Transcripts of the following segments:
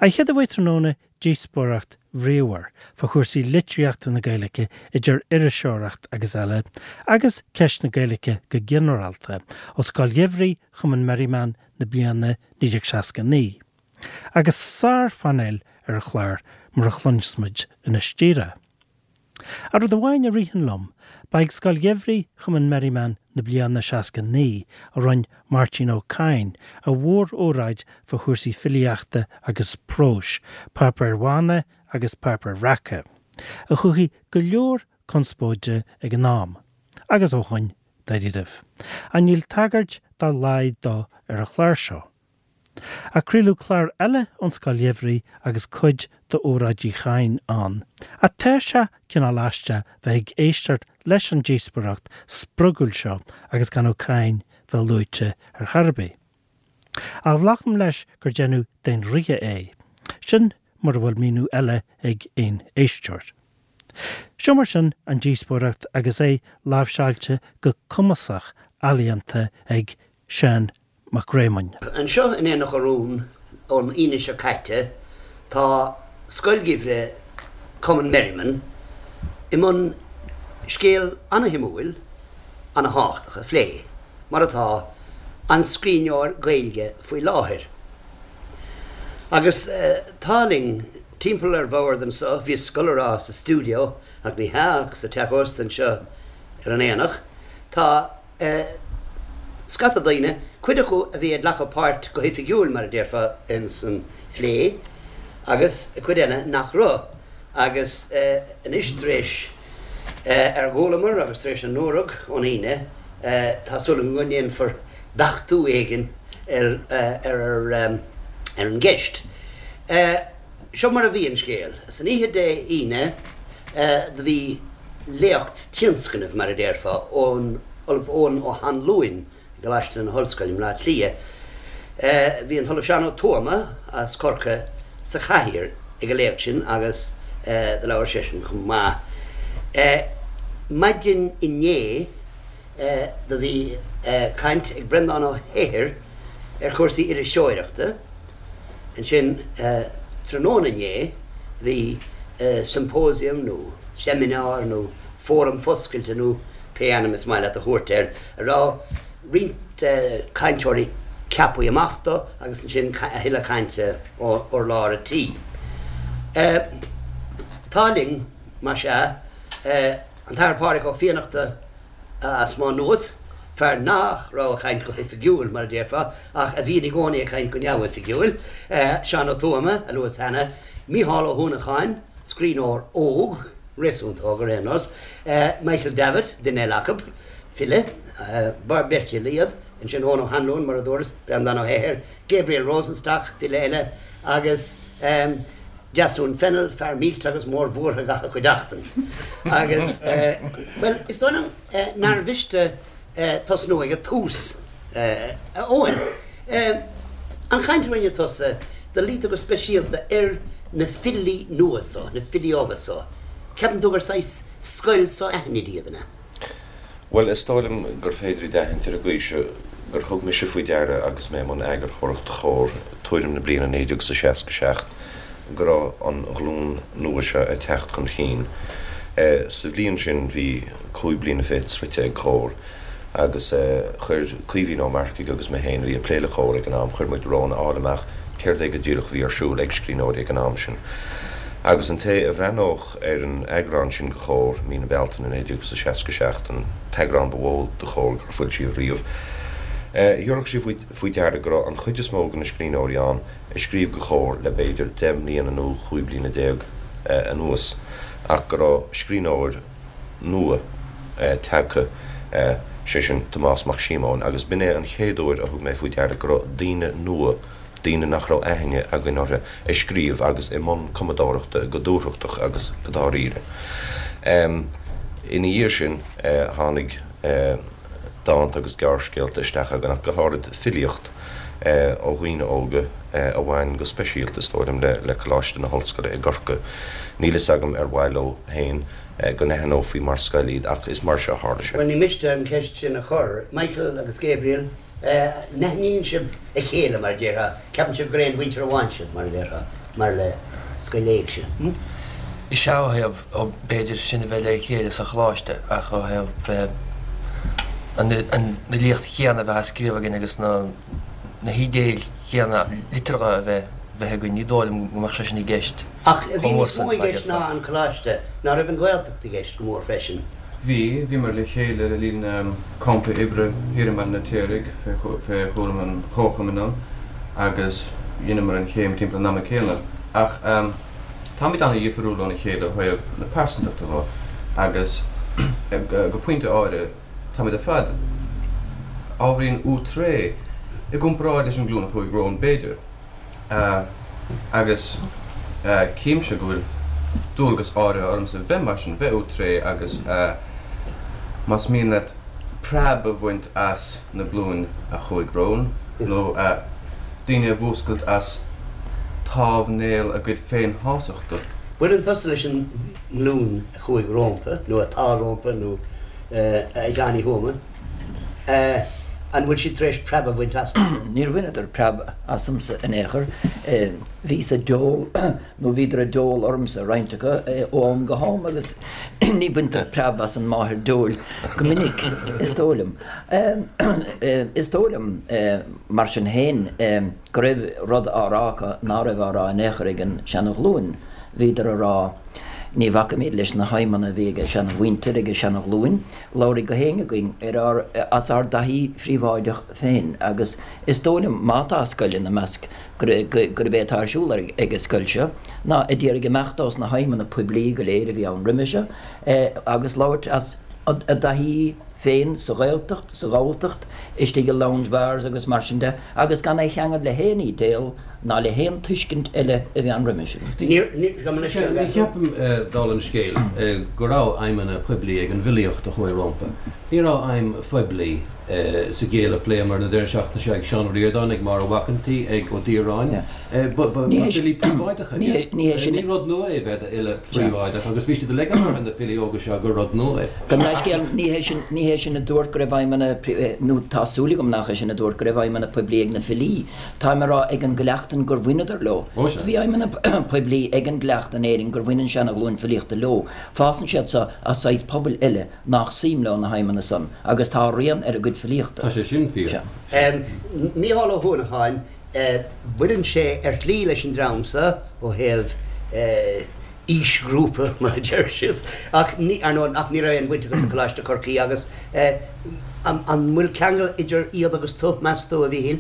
An chéad a bheidh tráthnóna díospóireacht bhríomhar fá chúrsaí litríochta na Gaeilge idir iriseoireacht agus eile, agus ceist na Gaeilge go ginearálta, ó Scoil Gheimhridh Chumann Merriman na bliana 1969. Agus sár-phainéal ar an chlár mar a chluinfeas muid anois díreach. Ach rud amháin a ritheann liom, ba ag Scoil Gheimhridh Chumann Merriman na bliana 69 a rinne Máirtín Ó Cadhain a mhór-óráid fá chúrsaí filíochta agus próis, páipéir bhána agus páipéir bhreaca, a chothaigh go leor conspóide ag an am, agus ó shoin, dáiríribh. Ach níl tagairt dá laghad dó ar an chlár seo. Ach craoladh clár eile ón Scoil Gheimhridh agus cuid d'óráid Uí Chadhain ann. Ach tá sé cineál aisteach bheith ag éisteacht leis an díospóireacht spriogúil seo agus gan Ó Cadhain bheith luaite ar chor ar bith. Ach glacaim leis gur déanadh d'aon ríthe é. Sin mura bhfuil míniú eile ag aon éisteoir. Seo mar sin an díospóireacht agus é láimhseáilte go cumasach ealaíonta ag Seán Mac Réamoinn. Anseo in Aonach Urumhan ón Aoine seo caite tá Scoil Gheimhridh Cumann Merriman i mbun scéal ana-shuimiúil, ana-thábhachtach a phlé, mar atá, an scríbhneoir Gaeilge faoi láthair. Agus tá linn timpeall ar bhord anseo, bhíos ag dul a rá sa stiúideo ach ní hea ach sa teach ósta anseo ar an Aonach, tá. scata daoine, cuid acu a bhí ag glacadh páirt go hoifigiúil, mar a déarfá, ins an phlé, agus cuid eile nach raibh. Agus anois, tar éis ar chualamar agus tar éis a ndúradh ón Aoine, tá súil agam go ndéanfar beachtú éigin ar ar an gceist. Seo mar a bhí an scéal. San oíche Dé hAoine do bhí léacht tionscnaimh, mar a déarfá, ón Ollamh Eoin Ó hAnluain i gColáiste na hOllscoile i mBleá Cliath. Bhí an tOllamh Seán Ó Tuama as Corcaigh sa chathaoir ag an léacht sin agus do labhair seisean chomh maith. Maidin inné do bhí caint ag Breandán Ó hEithir ar chúrsaí iriseoireachta. Ansin, tráthnóna inné, bhí symposium nó seimineár nó fóram foscailte nó pé ainm is maith leat a thabhairt air, a raibh roinnt cainteoirí ceaptha amach dó agus ansin a thuilleadh cainte ó urlár an tí. Tá linn, más ea, an tAthair Pádraig Ó Fiannachta, as Maigh Nuad, fear nach raibh ag caint go hoifigiúil, mar a déarfá, ach a bhíonn i gcónaí ag caint go neamhoifigiúil, Seán Ó Tuama, a luas cheana, Mícheál Ó hUanacháin, scríbhneoir óg, réasúnta óg ar aon nós, Michael Davitt, duine eile acu, file, beirt fhile iad, ansin Eoin Ó hAnluain, mar a dúras, Breandán Ó hEithir, Gabriel Rosenstock, file eile, agus. Deasún Fennell, fear millte agus mórbhuartha gach a chuideachtain. Agus, bhuel, is dóigh liom nár mhiste tosnú ag an tús, a Eoin. An chaint a rinne tusa, do luigh tú go speisialta ar na filí nua so, na filí óga so. Ceapann tú gur saghas scoil so-aithnid iad, an ea? Bhuel, is dóigh liom gur féidir iad a aithint ar an gcaoi seo gur thug mise faoi deara agus mé i mbun eagarthóireachta Chomhar tuairim na bliana 1967 go raibh an ghlúin nua seo ag teacht chun chinn. Sa bhliain sin bhí 25 bliana sroichte ag Comhar agus chuir Caoimhín Ó Marcaigh agus mé féin, a bhí ag plé le Comhar ag an am, chuir muid romhainn a fháil amach céard é go díreach a bhí ar siúl ag scríbhneoirí ag an am sin. Agus an té a bhreathnódh ar an eagrán sin de Chomhar, mí na Bealtaine 1967, an t-eagrán ba mhó de Chomhar gur foilsíodh riamh. Thabharfadh sé faoi deara go raibh an chuid is mó de na scríbhneoirí ann a scríobh do Chomhar le b'fhéidir 10 mbliana nó 15 bliana anuas ach go raibh scríbhneoir nua tagtha, sé sin Tomás Mac Síomóin, agus b'in é an chéad uair a thug mé faoi deara go raibh daoine nua daoine nach raibh aithne againn orthu, ag scríobh agus i mbun cumadóireachta go dúthrachtach agus go dáiríre. Ina dhiaidh sin tháinig dánta agus gearrscéalta isteach againn ach go háirid filíocht ó dhaoine óga a bhain go speisialta, is dóigh liom, le Coláiste na hOllscoile i gCorcaigh. Níl fhios agam ar mhaith leo féin go n-aithneofaí mar scoil iad ach is mar seo a tharla sé. Bhuel, ní miste an cheist sin a chur. Michael agus Gabriel. N-aithníonn sibh a chéile, mar a déarfá, ceapann sibh gur aon mhuintir amháin sibh, mar a déarfá, mar le scoil éigse? Is ea, ó thaobh, b'fhéidir, sinn a bheith le chéile sa choláiste, ach ó thaobh bheith, an fhilíocht chéanna a bheith á scríobh againn agus na hídéil chéanna liteartha a bheith bheith againn, ní dóigh liom go mbeadh sé sin i gceist Ach bhí níos mó i gceist ná an coláiste, ná raibh an Ghaeltacht i gceist go mór freisin? Bhí, bhíomar le chéile le linn campa oibre thiar i mBaile an Fheirtéaraigh fé chúram an Chomharchumainn ann agus dheineamar an chéim timpeall an ama céanna. Ach táimid an-dhifriúil óna chéile ó thaobh na pearsantachta dho agus go pointe áirithe táimid ar fad ábhairín outré i gcomparáid leis an nglúin a chuaigh romhainn b'fhéidir. Agus címse go bhfuil dualgas áirithe ormsa bheith mar sin, bheith outré agus más mian leat preab a bhaint as na glúin a chuaigh romhainn, nó daoine a mhúscailt as támhnéal a gcuid féinshástachta. Baineann tusa leis an nglúin a chuaigh rómpa, nó atá rómpa, nó a Sheáin Uí Thuama. An bhfuil siad tar éis preab a bhaint asatsa? Níor bhaineadar preab asamsa in aon chor. Bhíos ag deol, nó bhíodar ag deol ormsa, roinnt acu, ó am go ham agus ní baintear preab as an máthair deoil go minic, is dóigh liom. Is dóigh liom, mar sin féin, go raibh rud á rá acu ná raibh á rá in aon chor ag an seana-ghlúin. Bhíodar a rá, ní bhacaimid leis na haidhmeanna a bhí ag an seana-mhuintir, ag an seana-ghlúin. Labhraigh gach éinne againn ar ár, as ár dtaithí phríobháideach féin agus is dóigh liom, má tá scoil ina measc, gurb é atá ar siúl ag an scoil seo ná ag iarraidh imeacht ós na haidhmeanna poiblí go léir a bhí ann roimhe seo agus labhairt as a dtaithí féin sa Ghaeltacht, sa Ghalltacht, istigh i lounge bars agus mar sin de agus gan é a cheangal le haon ídéal ná le haon tuiscint eile a bhí ann roimhe sin. Ní cheapaim, dála an scéil, go raibh aidhmeanna poiblí ag an bhfilíocht a chuaigh rompu. Ní raibh aidhm phoiblí sa gcéill a phléamar na deireadh seachtaine seo ag Seán Ó Ríordáin, ag Máire Mhac an tSaoi, ag Ó Direáin. Ba filí príobháideacha iad. Ní rud nua é bheith i d'fhile phríobháideach agus bhí siad ag ligean orthu na filí óga seo gur rud nua é. Gabh mo leithscéal, ní hé sin, ní hé sin a dúirt go raibh aidhmeanna, nó tá súil agam nach é sin a dúirt go raibh aidhmeanna poiblí ag na filí. Táim ag rá ag an gcleachtan gur bhaineadar leo. Bhí aidhmeanna poiblí ag an gcleachtan in Éirinn gur bhain an seana-ghlúin filíochta leo. Fásann siad seo as saghas pobail eile nach suim leo na haidhmeanna san agus tá a rian ar a gcuid filíochta. Tá sé sin fíor. Mícheál Ó hUanacháin, Baineann sé ar shlí leis an dream seo ó thaobh aoisghrúpa, mar a deir siad, ach ní, ar ndóigh, ach ní raibh aon bhaint agat le Coláiste Chorcaí agus an bhfuil ceangal idir iad agus tú, meas tú, a Mhíchíl?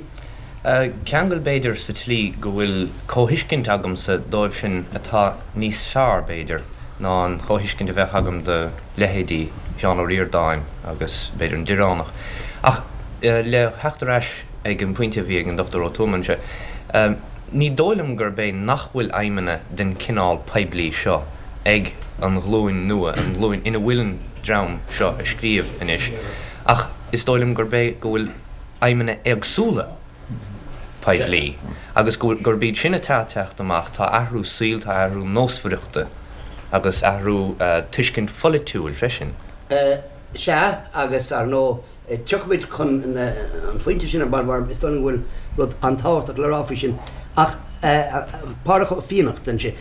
Ceangal b'fhéidir sa tslí go bhfuil comhthuiscint agamsa dóibh sin atá níos fearr, b'fhéidir, ná an chomhthuiscint a bheadh agam do leithéidí Sheán Ó Ríordáin agus b'fhéidir an Direánach. Ach le theacht ar ais ag an bpointe a bhí ag an Dr Ó Tuama anseo, ní dóigh liom gurb é nach bhfuil aidhmeanna den chineál poiblí seo ag an ghlúin nua, an ghlúin ina bhfuil an dream seo ag scríobh anois, ach is dóigh liom gurb é go bhfuil aidhmeanna éagsúla poiblí agus gurb iad sin atá ag teacht amach. Tá athrú saoil, tá athrú nósmhaireachta agus athrú tuiscint pholaitiúil freisin. Sea, agus ar ndóigh, Tiocfaimid chun an phointe sin ar ball mar is dóigh liom go bhfuil rud an-tábhachtach le rá faoi sin. Ach Pádhraic Ó Fiannachta ansin,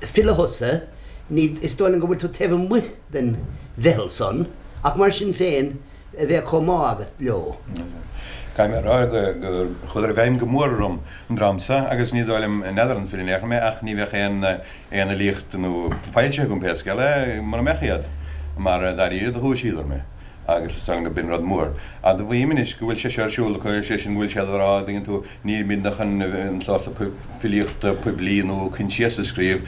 file thusa, ní, is dóigh liom go bhfuil tú taobh amuigh den mheitheal san, ach mar sin féin, bheadh comhbhá agat leo. Caithfidh mé a rá gur chuadar i bhfeidhm go mór orm, an dream seo, agus ní dóigh liom, n'fheadar an file in aon chor mé, ach ní bheadh aon aon fhilíocht nó foilsithe agam pé scéal é, mura mbeadh iad, mar dáiríre do dhúisíodar mé. agus is dóigh liom go b'in rud mór. Admhaím anois go bhfuil sé seo ar siúl acu, sé sin go bhfuil siad ag rá, an dtuigeann tú, nílimidne chun an sórt filíochta poiblí nó coinsiasa a scríobh,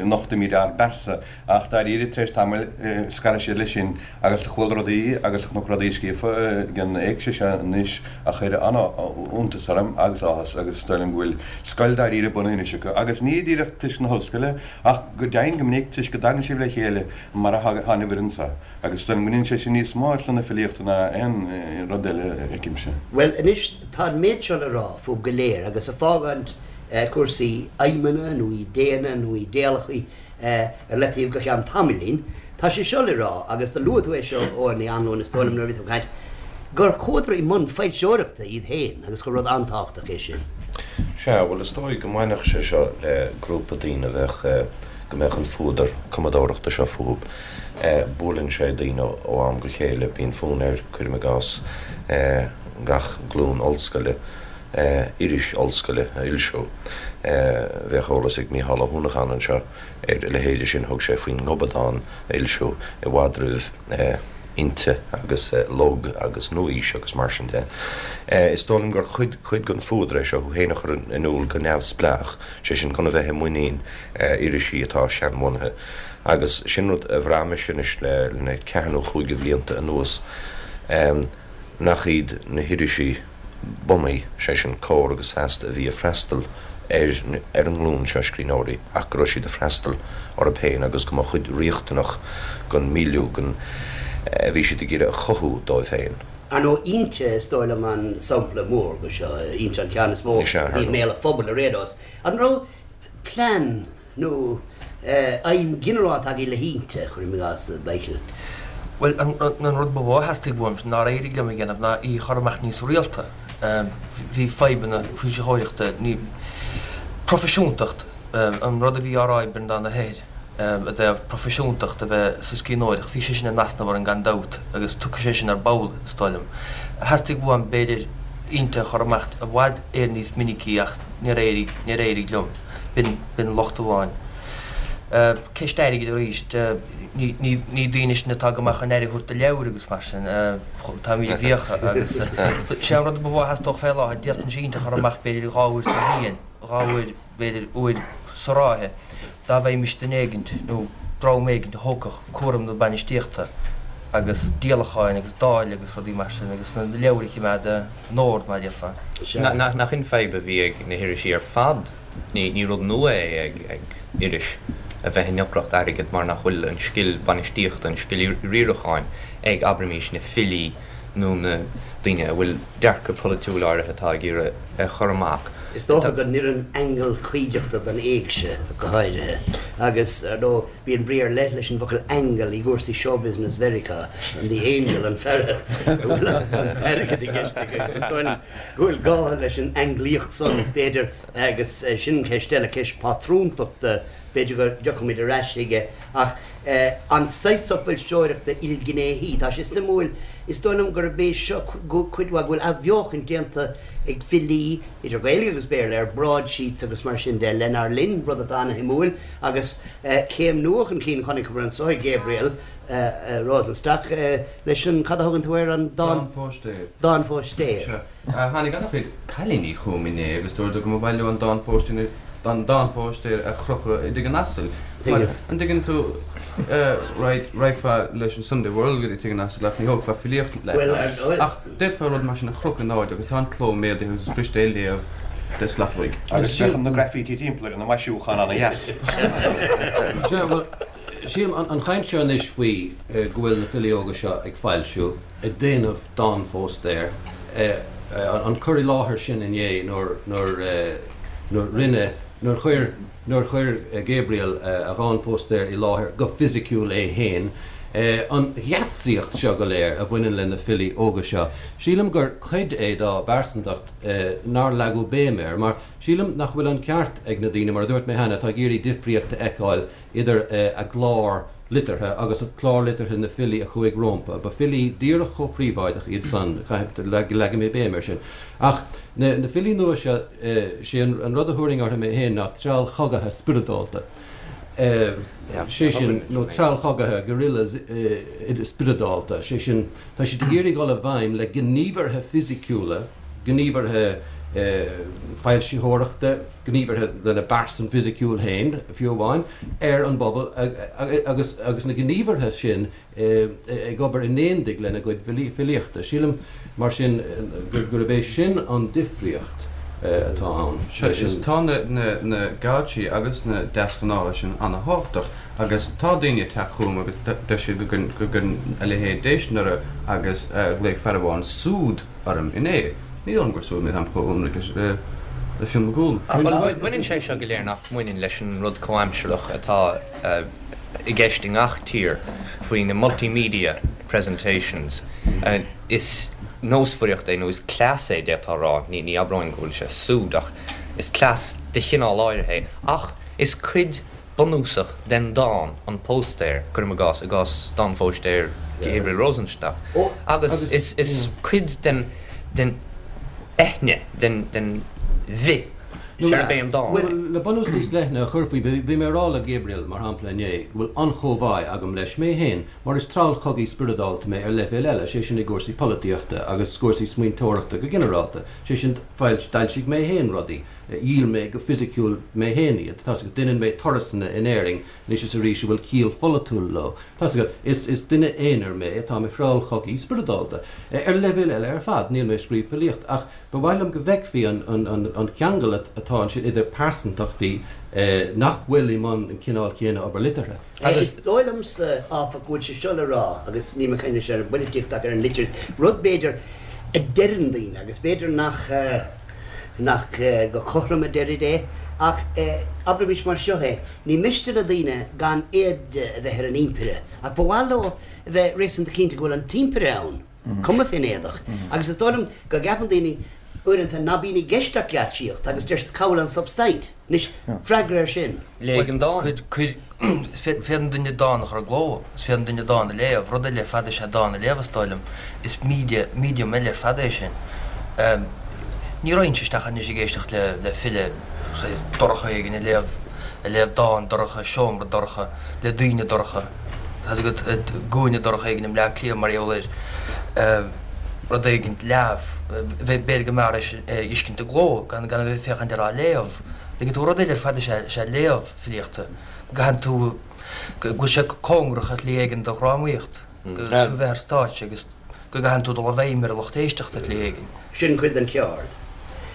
nochtaimid ár bpearsa. Ach dáiríre, tar éis tamaill, scarfaidh siad leis sin agus do chuala rudaí agus do chonac rudaí scríofa ag an éigse seo anois a chuir an-iontas orm agus áthas agus is dóigh liom go bhfuil scoil dáiríre bunaithe anois acu. Agus ní díreach toisc na hollscoile ach go deimhin go minic toisc go dtagann sibh le chéile mar a thagann an fhoireann seo. Agus is dóigh liom go ndéanann sé sin níos mó ar son na filíochta ná aon rud eile, a fheicimse. Bhuel, anois, tá an méid seo le rá fúibh go léir, agus ag fágáint cúrsaí aidhmeanna nó idéanna nó idéalacha ar leataobh go ceann tamaillín, tá sé seo le rá, agus do luaigh tú é seo, Eoghan Uí Anluain, is dóigh liom, nuair a bhí tú ag caint. gur chuadar i mbun foilseoireachta iad féin agus gur rud an-tábhachtach é sin. Sea, bhuel is dóigh go mbainfeadh sé seo le grúpa daoine a bheadh, go mbeadh an fuadar cumadóireachta seo fúthu. Buaileann sé daoine ó am go chéile, bíonn fonn air, cuirim i gcás, gach glúin ollscoile, iris ollscoile a fhoilsiú. Bheadh eolas ag Mícheál Ó hUanacháin anseo ar a leithéide sin, thug sé faoin nGobadán a fhoilsiú i bhfad roimh Innti agus Lug agus Nua-Aois agus mar sin de. Is dóigh liom gur chuid cuid den fuadar é seo thú féin a chur in iúl go neamhspleách, sé sin gan a bheith i muinín irisí atá seanbhunaithe. Agus sin rud a bhraith mise anois le na ceathair nó chúig de bhlianta anuas, nach iad na hirisí bunaidh, sé sin Comhar agus Feasta, a bhí ag freastal ar ar an nglúin seo scríbhneoirí ach go raibh siad ag freastal orthu féin agus go mba chuid riachtanach den milieu den a bhí siad ag iarraidh a chothú dóibh féin. Ar ndóigh, Innti is dóigh liom an sampla mór de seo, Innti an ceann is mó a bhí i mbéal an phobail ar aon nós. An raibh plean nó aidhm ghinearálta agaibh le hInnti, cuirim i gcás, Michael? Bhuel, an rud ba mhó a theastaigh uaim nár éirigh liom a dhéanamh ná í a chur amach níos rialta. Bhí fadhbanna foilsitheoireachta, ní proifisiúntacht, an rud a bhí á rá ag Breandán Ó hEithir i dtaobh proifisiúntacht a bheith sa scríbhneoireacht, bhí sé sin in easnamh orainn gan dabht agus tiocfaidh sé sin ar ball, is dóigh liom. Theastaigh uaim, b'fhéidir, Innti a chur amach i bhfad Éireann níos minicí ach níor éirigh, níor éirigh liom. B'in, b'in locht amháin. Ceist airgid arís, ní, ní daoine sinn atá go maith chun aire a thabhairt do leabhair agus mar sin, táimid i bhfiacha agus sé an rud ba mhó a theastódh fé láthair, d'fhéadfainnse Innti a chur amach b'fhéidir dhá uair sa bhliain, dhá uair, b'fhéidir uair sa ráithe, dá bhfaighimist duine éigint nó dream éigint a thógfadh cúram na bainistíochta agus díolacháin agus dáileadh agus rudaí mar sin agus na leabhair a choimeád in ord mar a déarfá. Nach in fadhb a bhí ag na hirisí ar fad? Ní rud nua é ag iris a bheith i ndeacracht airgid mar nach bhfuil an scil bainistíochta, an scil riaracháin ag, abraimís, na filí nó na daoine a bhfuil dearcadh polaitiúil áirithe atá ag iarraidh a chur amach. Is dócha go n-oireann aingeal cuideachta don éigse go háirithe agus, ar ndóigh, bíonn brí ar leith leis an bhfocal aingeal i gcúrsaí showbusiness Mheiriceá, an the angel, an fear a bhfuil an t-airgead i gceist aige agus is dóigh liom go bhfuil gá leis an ainglíocht san, b'fhéidir. Agus sin ceist eile, ceist pátrúntachta, b'fhéidir go dtiocfaimid ar ais chuige, ach an saghas so foilseoireachta ilghnéithí, tá sé suimiúil, is dóigh liom gurb é seo cuid mhaith, go bhfuil athbheochan déanta ag filí, idir Ghaeilge agus Béarla, ar broadsheets agus mar sin de, lenár linn, rud atá ana-shuimiúil, agus céim nua chun cinn chonaiceamar anso ag Gabriel Rosenstock leis an, cad a thugann tú air, an dán. Dánphóistéir. Dánphóistéir. Tháinig an-chuid cailíní chugam inné agus dúradar go mba mhaith leo an dánphóistéir an dánphóistéir a chrochadh i dtigh an asail. Mar, an dtuigeann tú, right, raghfá leis an Sunday World go dtí tigh an asail ach ní thógfá filíocht leat ann. Ach d'fhéadfá rud mar sin a chrochadh in airde agus tá an cló méadaithe agus is fuirist é a léamh de shlat uaidh. Agus bheadh na graffiti timpeall air ina maisiúchán ana-dheas. Sea, bhuel, sílim, an chaint seo anois faoi go bhfuil na filí óga seo ag foilsiú, ag déanamh dánphóstaer, an cur i láthair sin inné nuair, nuair, nuair rinne, nuair chuir, nuair chuir Gabriel a dhánphóstaer i láthair go fisiciúil é féin, an gheatsaíocht seo go léir a bhaineann le na filí óga seo, sílim gur cuid é dá bpearsantacht nár leagadh béim air, mar sílim nach bhfuil an ceart ag na daoine, mar a dúirt mé cheana, atá ag iarraidh difríocht a fheiceáil idir a gclár liteartha agus clár liteartha na filí a chuaigh rompu. Ba filí díreach chomh príobháideach iad san, leagfaidh mé béim air sin. Ach na filí nua seo, sé an rud a thabharfainn orthu mé féin ná treallchogaithe spioradálta. Sé sin, nó treallchogaithe, guerrillas spioradálta, sé sin, tá siad ag iarraidh dul i bhfeidhm le gníomhartha fisiciúla, gníomhartha foilsitheoireachta, gníomhartha lena bpearsan fisiciúil féin, fiú amháin, ar an bpobal agus agus na gníomhartha sin ag obair in éindigh lena gcuid filíochta. Sílim, mar sin, gurb é sin an difríocht atá ann. Sea, is tá na geáitsí agus na deasghnátha sin ana-thábhachtach agus tá daoine ag teacht chugam agus deir siad go gcuireann a leithéid déistin orthu agus ghlaoigh fear amháin 'súd' orm inné. Ní dóigh liom gur súd mé, táim chomh ionraic le Fionn Mac Cumhaill. Ach baineann sé seo go léir nach mbaineann leis an rud comhaimsearach atá i gceist i ngach tír faoi na multimedia presentations. Is. nósmhaireacht é nó is cleas é, d'fhéadfá a rá, ní abróinn go bhfuil sé súd ach is cleas de chineál áirithe é. Ach is cuid bunúsach den dán an póstaer, cuirim i gcás, i gcás dán phóstaer Gabriel Rosenstock, agus is cuid den den eithne, den den bhith arb é an dán é. Le bunús níos leithne a chur faoi, bhí mé ag rá le Gabriel, mar shampla, inné, go bhfuil an-chomhbhá agam leis mé féin, mar is treallchogaí spioradálta mé ar leibhéal eile, sé sin i gcúrsaí polaitíochta agus cúrsaí smaointeoireachta go ginearálta, sé sin d'fhoilsigh mé féin rudaí, dhíol mé go fisiciúil mé féin iad, tá's agat, deineann mé turasanna in Éirinn anois is arís a bhfuil ciall pholaitiúil leo, tá's agat, is is duine aonair mé atá i mo threallchogaí spioradálta. Ar leibhéal eile ar fad, níl mé ag scríobh filíocht ach Ba mhaith liom go bhfeicfí an ceangal atá ansin idir pearsantachtaí nach bhfuil i mbun an chineál chéanna obair liteartha. Is dóigh liomsa, áfach, go bhfuil sé seo le rá, agus níl mé ag caint anois ar an bpoilitíocht ach ar an litríocht, rud, b'fhéidir, a deireann daoine, agus b'fhéidir nach nach go cothrom a deirid é, ach abraimis mar seo é, ní miste le daoine gan éide a bheith ar an impire, ach ba mhaith leo a bheith réasúnta cinnte go bhfuil an t-impire ann. cuma fén éadach. Agus is dóigh liom go gceapann daoine uaireanta ná bíonn i gceist ach geáitsíocht agus deir siad cá bhfuil an substaint? Anois, freagra air sin. Léigh an dán. Cuir, féadann duine dán a chur i gcló, is féadann duine dán a léamh, rud eile ar fad is ea dán a léamh is dóigh liom. Is media, medium eile ar fad é sin. Ní raghainnse isteach anois ag éisteacht le, le file dorcha éigin ag léamh, ag léamh dán dorcha i seomra dorcha le daoine dorcha. Tá's agat, i gcúinne dorcha éigin i mBleá Cliath mar gheall ar rud éigin leamh. B'fhéidir go mb'fhearr é a fheiscint i gcló gan a bheith ag féachaint air á léamh. Tuigeann tú, rud eile ar fad is ea léamh filíochta. Go gcaitheann tú, go bhfuil sé cóngarach ar shlí éigin do dhrámaíocht, go tú a bheith ar stáitse agus go gcaitheann tú dul i bhfeidhm ar an lucht éisteachta ar shlí éigin. Sin cuid den cheard.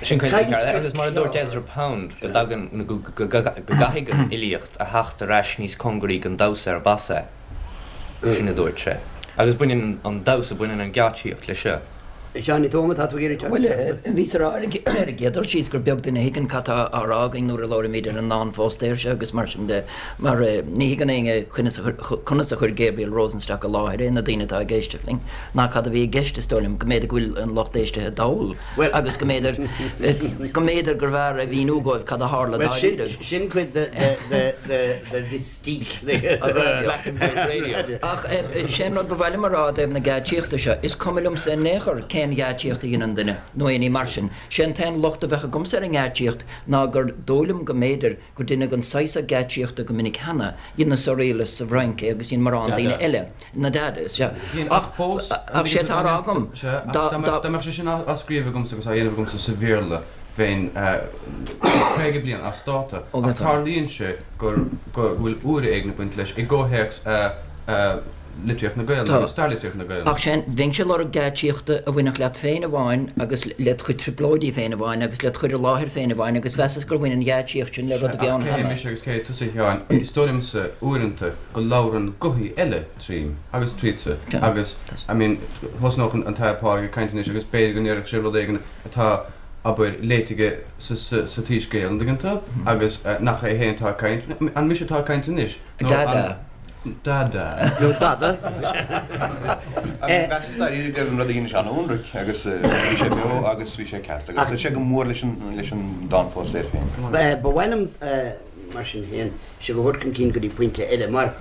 Sin cuid den cheard. Agus mar a dúirt Ezra Pound, go dtagann, go gcaithfidh an fhilíocht a theacht ar ais níos cóngaraí don damhsa arb as é. Sin a dúirt sé. Agus baineann an damhsa, baineann an gheáitsíocht leis seo. A Sheáin Uí Tuama, tá tú ag iarraidh teacht Bhuel, isteach anso. bhíos ag rá ar an gcéad dul síos gur beag duine a thuigeann cad tá á rá againn nuair a labhraímid ar an ndán phóstaeir seo agus mar sin de, mar ní thuigeann éinne conas a conas a chuir Gabriel Rosenstock i láthair é, na daoine atá ag éisteacht linn, ná cad a bhí i gceist, is dóigh liom, go mb'fhéidir go bhfuil an lucht éistithe dall agus go mb'fhéidir go mb'fhéidir gurbh fhearr a mhíniú dóibh cad a tharla Bhuel, sin dáiríre. sin cuid de de de de mystique Black and White Radio. Ach sé an rud ba mhaith liom a rá i dtaobh na geáitsíochta seo, is cuma liomsa in aon chor cén gheáitsíocht a dheineann duine, nó aon ní mar sin. Sé an t-aon locht a bheadh agamsa ar an ngeáitsíocht ná gur dóigh liom go mb'fhéidir gur deineadh an saghas seo geáitsíochta go minic cheana, dhein na Surrealists sa bhFrainc é agus dhein morán daoine eile, na Dadas, sea. Ach fós, Ach sé atá á rá agam, dá, dá. Dá mbeadh sé sin á scríobh agamsa agus á dhéanamh agamsa sa Bhéarla, bheinn 50 bliain as dáta. Ach tarlaíonn sé gur, go bhfuil úire éigin ag baint leis i gcomhthéacs litríocht na Gaelainne agus stair litríocht na Gaelainne. Ach sin, bheinnse ag lorg geáitsíochta a bhainfeadh leat féin amháin agus led chuid trioblóidí féin amháin agus led chur i láthair féin amháin agus mheasas gur bhain an gheáitsíocht sin le rud a bhí ann Cé hé cheana. mise agus cé hé tusa, a Sheáin? Is dóigh liomsa uaireanta go labhrann gothaí eile tríom agus tríotsa agus, I mean, thosnódh an tAthair Pádraig ag caint anois agus b'fhéidir go ndéarfadh sé rud éigin atá, abair, léite aige sa tSoiscéal, an dtuigeann tú? Agus nach é féin atá ag caint, an mise atá ag caint anois? Nó an. Dada. Nó dada. Mheasas dáiríre go raibh an rud a dheinis an-ionraic agus bhí sé beo agus bhí sé ceart agus chuir sé go mór leis an dán phóstaeir féin. Ba mhaith liom, mar sin féin, sibh a thabhairt chun cinn go dtí pointe eile, mar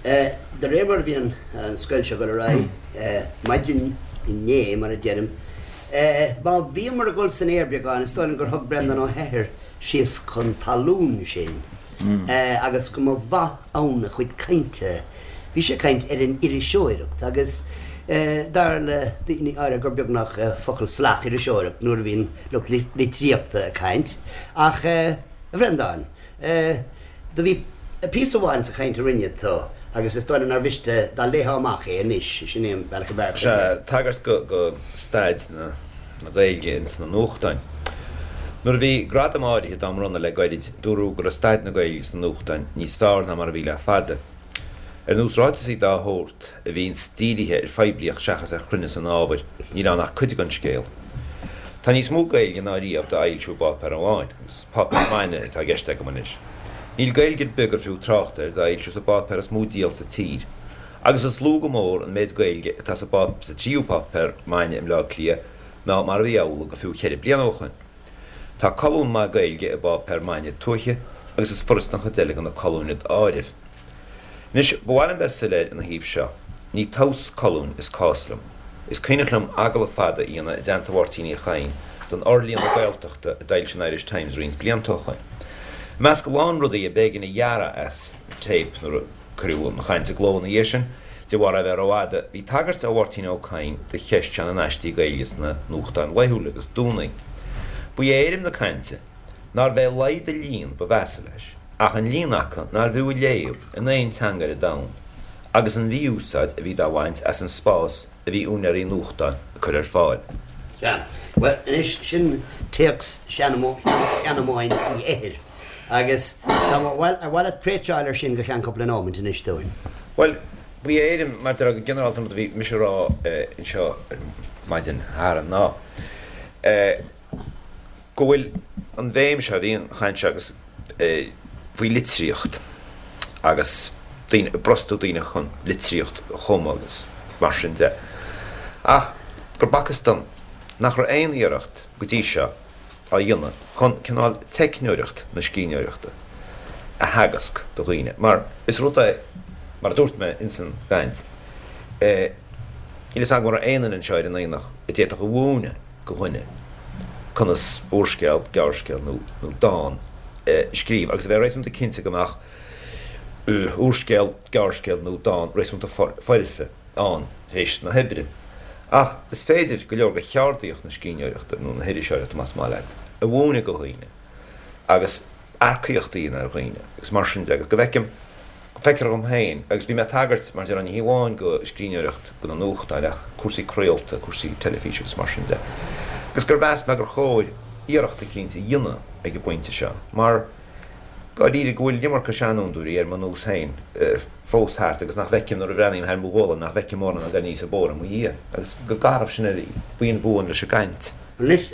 de réir mar a bhí an scoil seo ag dul ar aghaidh, maidin inné, mar a deirim, má bhíomar ag dul san aer beagán, is dóigh liom gur thug Breandán Ó hEithir síos chun talún sinn agus go mba mhaith ann a chuid cainte. Bhí sé ag caint ar an iriseoireacht agus dar le daoine áirithe gur beagnach focal salach iriseoireacht nuair a bhíonn lucht litríochta ag caint. Ach, a Bhreandáin, Do bhí píosa amháin sa chaint a rinne tú agus is dóigh liom nár mhiste dá léifeá amach é anois, sin é an bealach ab fhearr chun Sea, tagairt go staid na Gaeilge ins na nuachtáin. Nuair a bhí gradaim áirithe dá mbronnadh le goirid, dúradh go raibh staid na Gaeilge sna nuachtáin níos fearr ná mar a bhí le fada. Ar nós ráiteasaí dá shórt, a bhíonns dírithe ar phoiblíocht seachas ar chruinneas an ábhair, níl ann ach cuid den scéal. Tá níos mó Gaeilge ná riamh dá fhoilsiú i bpáipéar amháin, agus páipéar maidne atá i gceist agam anois. Níl Gaeilge ar bith gur fiú trácht air dá fhoilsiú sa bpáipéar is mó díol sa tír. Agus is lú go mór an méid Gaeilge atá sa sa tríú páipéar maidne i mBleá Cliath ná mar a bhí amhlaidh go fiú cheithre bliana ó shoin. Tá colún maith Gaeilge i bpáipéar maidne tuaithe agus is furasta an chuid eile de na colúin d'áireamh. Anois, ba mhaith liom bheith soiléir ina thaobh seo, ní tomhas colúin is cás liom. Is cuimhneach liom agallamh fada a dhéanamh i dteannta Mháirtín Uí Chadhain don fhorlíonadh Gaeltachta a d'fhoilsigh an Irish Times roinnt blianta ó shoin. I measc a lán rudaí a b'éigean a ghearradh as an téip nuair a cuireadh an chaint i gcló ina dhiaidh sin, de bharr é bheith rófhada, bhí tagairt ó Mháirtín Ó Cadhain do cheist seo na n-aistí Gaeilge sna nuachtáin laethúla agus Domhnaigh. Ba é éirim na cainte nárbh é laghad a líon ba mheasa leis, ach an líon acu nárbh fhiú a léamh in aon teanga ar an domhan, agus an mhí-úsáid a bhí dá bhaint as an spás a bhí úinéirí nuachtáin ag cur ar fáil. Sea. Bhuel, anois, sin téacs Sheanamóin Uí Eithir. Agus dá mba mhaith, ar mhaith leat préitseáil ar sin go ceann cúpla nóimint anois dúinn? Bhuel, ba é éirim, mar a déarfá go ginearálta an rud a bhí mise a rá anseo ar maidin Shathairn ná go bhfuil an bhéim seo, bhí an chaint seo agus faoi litríocht agus daoine, ag brostú daoine chun litríocht a chumadh agus mar sin de. Ach gur b'fhacthas dom nach raibh aon iarracht go dtí seo á dhéanamh chun cineál teicneoireacht na scríbhneoireachta a theagasc do dhaoine mar is rud é, mar a dúirt mé ins an gcaint, níl fhios agam an raibh aon duine anseo ar an aonach a d'fhéadfadh a mhúineadh go dhuine conas úrscéal, gearrscéal nó dán a scríobh agus a bheith réasúnta cinnte go mbeadh úrscéal, gearrscéal nó dán réasúnta foirfe ann tar éis na hoibre. Ach is féidir go leor de cheardaíocht na scríbhneoireachta, nó na hiriseoireachta más maith leat, a mhúineadh go dhaoine agus earcaíocht a dhéanamh ar dhaoine agus mar sin de agus go bhfeicim, feictear dhom féin, agus bhí mé ag tagairt mar déarfá ní hé amháin go scríbhneoireacht do na nuachtáin ach cúrsaí craolta, cúrsaí teilifíse agus mar sin de, agus gur mheas mé gur chóir iarracht eicínt a dhéanamh ag an bpointe seo mar dáiríre go bhfuil an iomarca seanfhondúirí ar mo nós féin fós thart agus nach bhfeicim nuair a bhreathnaím thar mo ghualainn nach bhfeicim mórán ag dul aníos an bóthar i mo dhiaidh agus go garbh sin ar buíon buan leis an gcaint. Anois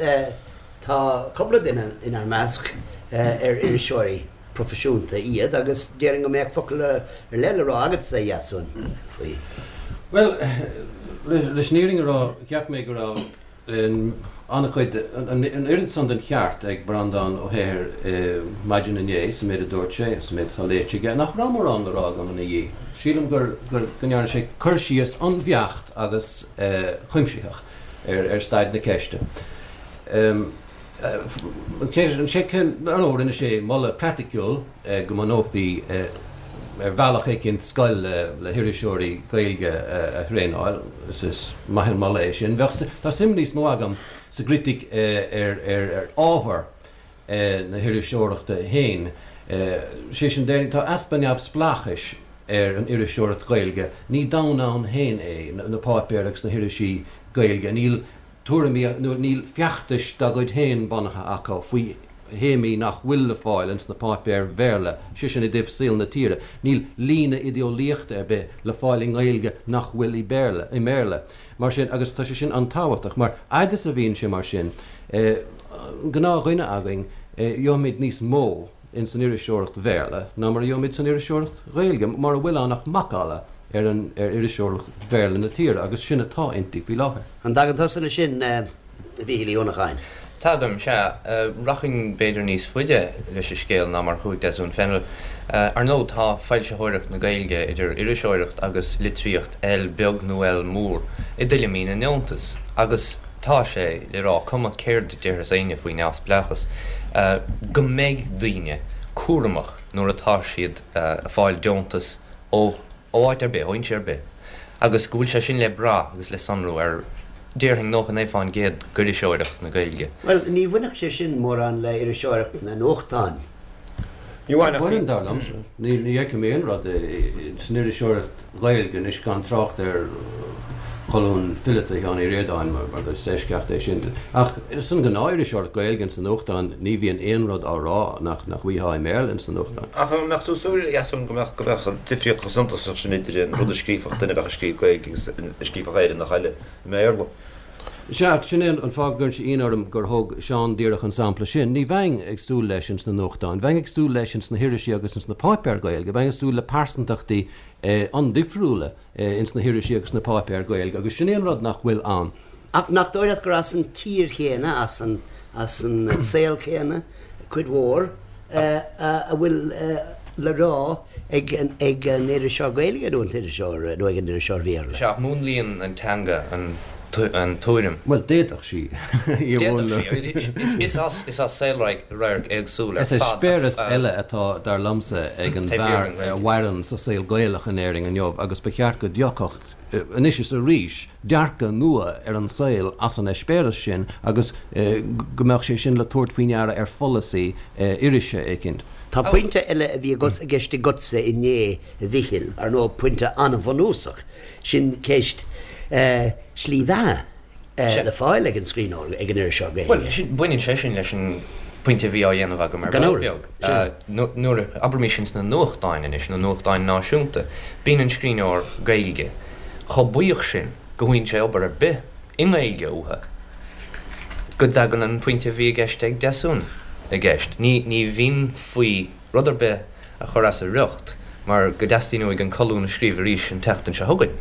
tá cúpla duine inár measc ar iriseoirí proifisiúnta iad agus déarfainn go mbeadh focal ar leith le rá agatsa, a Dheasúin, faoi. Bhuel, leis an fhírinne a rá, cheap mé go raibh an-chuid, an oiread san den cheart ag Breandán Ó hEithir maidin inné sa méid a dúirt sé, sa méid atá léite aige, nach raibh mórán le rá agam ina dhiaidh. Sílim gur, go ndearna sé cur síos an-bheacht agus cuimsitheach ar staid na ceiste. Ar ndóigh, rinne sé moladh praiticiúil go mbunófaí ar bhealach éicint scoil le hiriseoirí Gaeilge a thraenáil. Is maith an moladh é sin. Bheadh, tá suim níos mó agam sa gcritic ar ábhar na hiriseoireachta féin. Sé sin, déarfainn, tá easpa neamhspleáchais ar an iriseoireacht Ghaeilge. Ní domhan ann féin é, na páipéir agus na hirisí Gaeilge. Níl tuairimí nó níl feachtais dá gcuid féin bunaithe acu faoi théamaí nach bhfuil le fáil ins na páipéir Bhéarla, sé sin i dtaobh saol na tíre. Níl líne idéolaíochta ar bith le fáil i nGaeilge nach bhfuil i Béarla, i mBéarla. Mar sin, agus tá sé sin an-tábhachtach, mar fhad is a bhíonn sé mar sin, an gnáthdhuine againn, gheobhaimid níos mó ins an iriseoireacht Bhéarla ná mar a gheobhaimid san iriseoireacht Ghaeilge, mura bhfuil ann ach macalla ar an ar iriseoireacht Bhéarla na tíre, agus sin atá inti faoi láthair. An dtagann tusa leis sin, a Mhíchíl Uí Uanacháin? Tagaim, sea. Rachainn b'fhéidir níos faide leis an scéal ná mar a chuaigh Deasún Fennell. Ar ndóigh, tá foilsitheoireacht na Gaeilge, idir iriseoireacht agus litríocht, L beag nó L mór, i dtuilleamaí na ndeontas, agus tá sé le rá, cuma céard a déarfas éinne faoi neamhspleáchas, go mbeidh daoine cúramach nuair atá siad ag fáil deontas ó áit ar bith, ó fhoinse ar bith, agus go bhfuil sé sin le brath agus le sonrú ar, déarfainn, 99% d'iriseoireacht na Gaeilge. Bhuel, ní bhainfeadh sé sin mórán le iriseoireacht na nuachtán. Ní bhaineann, dar liomsa. Ní fheicim aon rud san iriseoireacht Ghaeilge anois, gan trácht ar cholún fileata Sheáin Uí Ríordáin, mar is eisceacht é sin. Ach san ghnáth-iriseoireacht Ghaeilge ins na nuachtáin, ní bhíonn aon rud á rá nach bhfaighfeá i mBéarla ins na nuachtáin. Ach an mbeadh tú ag súil, a Dheasúin, go mbeadh go mbeadh difríocht chomh suntasach sin idir an rud a scríobhfadh duine a bheadh ag scríobh Gaeilge agus a scríobhfadh Éireannach eile i mBéarla? Sea, ach sin é an fáth go gcuireann sé ionadh orm gur thóg Seán díreach an sampla sin. Ní bheinn ag súil leis ins na nuachtáin. Bheinn ag súil leis ins na hirisí agus ins na páipéir Gaeilge. Bheinn ag súil le pearsantachtaí an-difriúla ins na hirisí agus na páipéir Gaeilge agus sin é an rud nach bhfuil ann. Ach nach dóigh leat gur as an tír chéanna, as an as an saol céanna, cuid mhór, a bhfuil le rá ag an iriseoir Gaeilge nó an t-iriseoir nó ag an iriseoir Bhéarla. Sea, ach múnlaíonn an teanga an tuairim. Bhuel, d'fhéadfadh sí í a mhúnlú. D'fhéadfadh sí. Is as saolradharc éagsúil ar fad. Is eispéireas eile atá, dar liomsa, ag an bhfear a mhaireann sa saol Gaelach in Éirinn inniu agus ba cheart go dtiocfadh, anois is arís, dearcadh nua ar an saol as an eispéireas sin agus go mbeadh sé sin le tabhairt faoi ndeara ar pholasaí irise éicint. Tá pointe eile a bhí i gceist agatsa inné, a Mhichíl, ar ndóigh, pointe an-bhunúsach, sin ceist slí bheatha le fáil ag an scríbhneoir, ag an iriseoir Gaeilge. Bhuel, sin, baineann sé sin leis an bpointe a bhí á dhéanamh agam ar ball beag. Nuair a, abraimis ins na nuachtáin anois, na nuachtáin náisiúnta, bíonn an scríbhneoir Gaeilge chomh buíoch sin go bhfaigheann sé obair ar bith i nGaeilge uathu go dtagann an pointe a bhí i gceist ag Deasún i gceist. Ní, ní bhíonn faoi rud ar bith a chur as a riocht mar go dteastaíonn uaidh an colún a scríobh arís an tseachtain seo chugainn.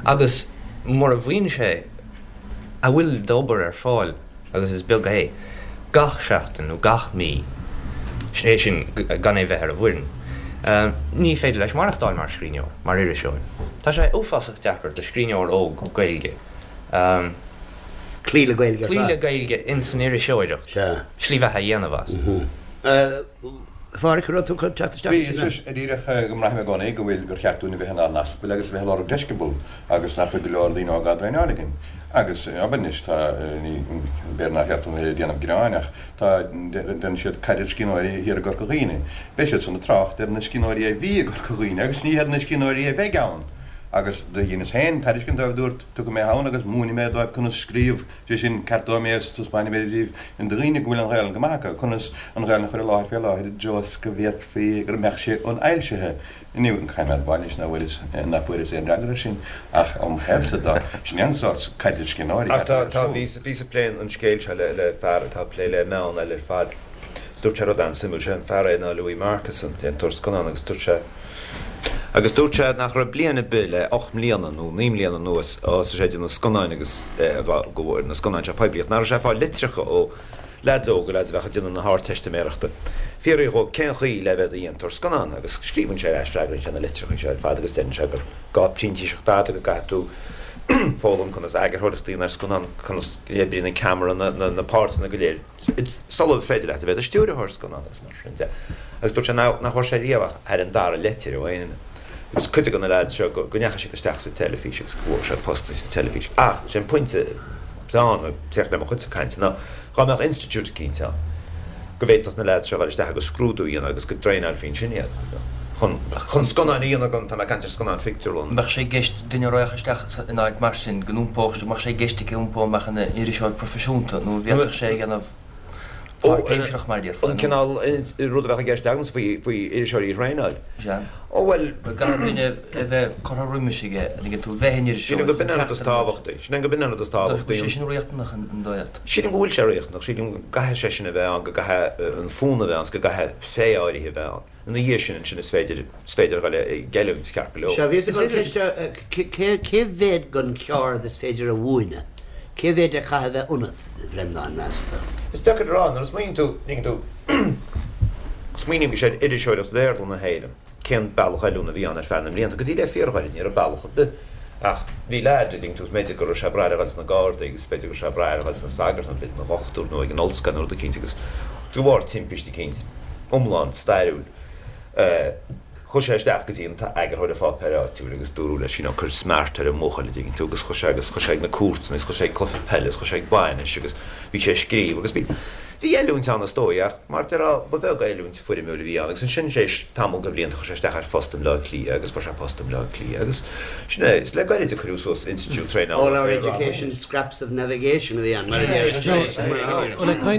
Agus mura bhfaigheann sé a bhfuil d'obair ar fáil, agus is beag é, gach seachtain nó gach mí, sé sin gan é bheith ar an bhfoireann, ní féidir leis maireachtáil mar scríbhneoir, mar iriseoir. Tá sé uafásach deacair do scríbhneoir óg Gaeilge cloí le Gaeilge ar fad. Cloí le Gaeilge ins an iriseoireacht, slí bheatha a dhéanamh as. A Phádhraic, an raibh tú chun teacht isteach Bhí, is díreach go mbraithim i gcónaí go bhfuil, gur cheart dúinn a bheith inár n-aspail agus a bheith ag lorg deisceabal agus nach bhfuil go leor daoine óga á dtraenáil againn. Agus, abair anois, tá, ní, b'fhéidir nár cheart dom a bheith ag déanamh gearáin ach tá, déanann siad caidreamh scríbhneoirí thiar i gCorca Dhuibhne. Beidh siad san ag trácht ar na scríbhneoirí a bhí i gCorca Dhuibhne agus ní ar na scríbhneoirí a bheidh ann. Agus do dheineas féin tairiscint dóibh, dúrt, tiocfaidh mé ann agus múinfidh mé dóibh conas scríobh. Sé sin, ceartóidh mé is taispeánfaidh mé daoibh, do dhaoine go bhfuil an Ghaelainn go maith acu, conas an Ghaelainn a chur i láthair fé láthair i dtreo is go bhféadfaí go mbeadh sé ionfhoilsithe. Inniu, caithfidh mé a admháil anois nach bhfuaireas, nach bhfuaireas aon fhreagra air sin, ach óm thaobhsa de, sin é an sórt caidrimh scríbhneoirí Ach tá, tá, bhíos, bhíos ag plé an scéil seo le, le fear atá ag plé le meáin eile ar fad. Is dúirt sé rud an-suimiúil, sé an fear é ná Louis Marcus, an déantóir scannán, agus dúirt sé, Agus dúirt sé nach raibh bliain ar bith le 8 mbliana nó 9 mbliana anuas ó thosaigh sé ag déanamh scannáin agus go bhfuair na scannáin seo poiblíocht, nach raibh sé ag fáil litreacha ó leaids óga, leaids a bheadh ag déanamh na hArdteistiméireachta, fiafraí dhó cén chaoi le bheith i do dhéantóir scannán agus scríobhann sé ar ais, freagraíonn sé na litreacha seo ar fad agus deireann sé gur gá printíseacht fhada, go gcaithfidh tú foghlaim conas eagarthóireacht a dhéanamh ar scannán, conas a oibríonn an ceamara, na páirteanna go léir. sular féidir leat a bheith i do stiúrthóir scannán agus mar sin de. Agus dúirt sé nach bhfuair sé riamh ach thar an dara leitir ó aon duine. Agus cuid de na leaids seo go ndeachaigh siad isteach sa teilifís agus go bhfuair siad post sa teilifís. Ach sé an pointe atá ann, ag teacht le mo chuidse cainte, ná dhá mbeadh institiúid eicínt ann go bhféadfadh na leaids seo a dhul isteach agus scrúdú a dhéanamh agus go dtraenáilfí ansin iad chun chun scannáin a dhéanamh gan, tá mé ag caint ar scannáin phictiúrlann. Mbeadh sé i gceist duine a raghadh isteach in áit mar sin go n-iompódh, mbeadh sé i gceist aige iompó amach ina iriseoir proifisiúnta nó an bhféadfadh sé a dhéanamh páirtaimsearach mar a déarfá? An cineál rud a bheadh i gceist agamsa faoi faoi iriseoirí a thraenáil. Sea. Ó bhuel. Caithfidh duine a bheith curtha roimis aige an dtuigeann tú, bheith ina iriseoir. Sílim go b'in an rud is tábhachtaí. Sílim go b'in an rud is tábhachtaí. Tá sé sin riachtanach an dóigh leat? Sílim go bhfuil sé riachtanach. Sílim go gcaithfidh sé sin a bheith ann, go gcaithfidh an fonn a bheith ann, go gcaithfidh féith áirithe a bheith ann. Ina dhiaidh sin, ansin is féidir, is féidir a dhul ag oiliúint, ceart go leor. Sea, bhíos ag dul ceist a, cé, cé mhéad den cheard is féidir a mhúineadh? Cé mhéad a chaithfidh a bheith ionat, a Bhreandáin, meas tú? Is deacair a rá, nuair a smaoiníonn tú, tuigeann tú, smaoinímis ar iriseoireacht Bhéarla na hÉireann, cén bealach oiliúna a bhí ann ar feadh na mblianta, go dtí le fíorghairid, ní raibh bealach ar bith. Ach bhí leaid, a dtuigeann tú, b'fhéidir go raibh sé breá air a dhul sna Gardaí agus b'fhéidir go raibh sé breá air a dhul sna sagairt nó b'fhéidir ina dhochtúir nó ag an ollscoil nó rud eicínt agus de bharr timpiste eicínt, iomlán stairiúil. Chuaigh sé isteach go dtí an t-eagarthóir an pháipéir áitiúil agus dúradh leis, you know, cuir smart ar an mbuachaill, a dtuigeann tú, agus chuaigh sé agus chuaigh sé ag na cúirteanna agus chuaigh sé ag cluiche peile agus chuaigh sé ag bainis agus bhí sé ag scríobh agus bhí, bhí oiliúint ann is dóigh ach mar a déarfá ba bheag oiliúint foirmiúil a bhí ann agus ansin tar éis tamall de bhlianta chuaigh sé isteach ar phost i mBleá Cliath agus fuair sé post i mBleá Cliath agus sin é, is le gairid a cuireadh suas institiúid traenála All our education scraps of navigation a bhí ann, mar a deir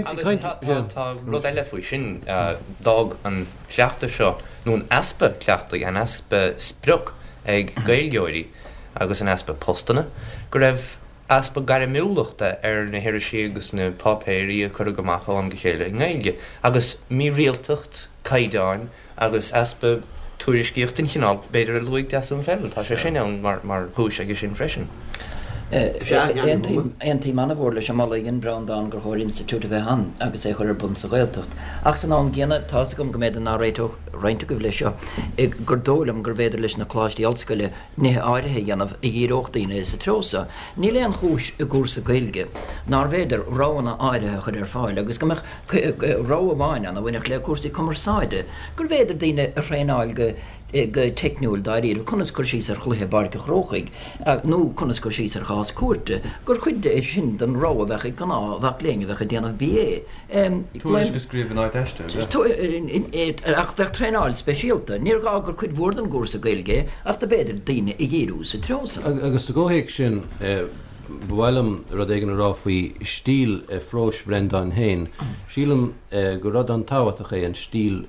Agus tá rud eile faoi sin, d'fhág an cleachtadh seo, nó an easpa cleachtaidh, an easpa sprioc ag Gaeilgeoirí agus an easpa postanna, go raibh. easpa gairmiúlachta ar na hirisí agus na páipéirí a cuireadh amach ó am go chéile i nGaeilge, agus mírialtacht caighdeáin agus easpa tuairiscíocht den chineál, b'fhéidir, a luaigh Deasún Fennell. Tá sé sin ann mar chúis aige sin freisin. Aontaím an-mhór leis an moladh a dhein Breandán gur chóir institiúid a bheith ann agus é a chur ar bun sa Ghaeltacht. Ach san am gcéanna, tá's agam go mb'fhéidir nach réiteodh roinnt agaibh leis seo, gur dóigh liom gurbh fhéidir leis na coláistí ollscoile nithe áirithe a dhéanamh a dhíreodh daoine sa treo so. Níl aon chúis i gcúrsa Gaeilge nárbh fhéidir roghanna áirithe a chur ar fáil agus go mbeadh rogha amháin ann a bhainfeadh le cúrsaí cumarsáide, gurbh fhéidir daoine a thraenáil go go teicniúil dáiríre, conas cur síos ar chluiche i bPáirc an Chrócaigh nó conas cur síos ar chás cúirte, gur chuid é sin den rogha a bheadh ag gnáth-mhac léinn a bheadh ag déanamh BA. Tuairisc a scríobh in áit aiste, ab ea? Ach bheadh traenáil speisialta. Níor ghá gur cuid mhór den gcúrsa Gaeilge é, ach do b'fhéidir daoine a dhíriú sa treo san. Agus sa gcomhthéacs sin, ba mhaith liom rud éigin a rá faoi stíl phróis Bhreandáin féin. Sílim gur rud an-tábhachtach é an stíl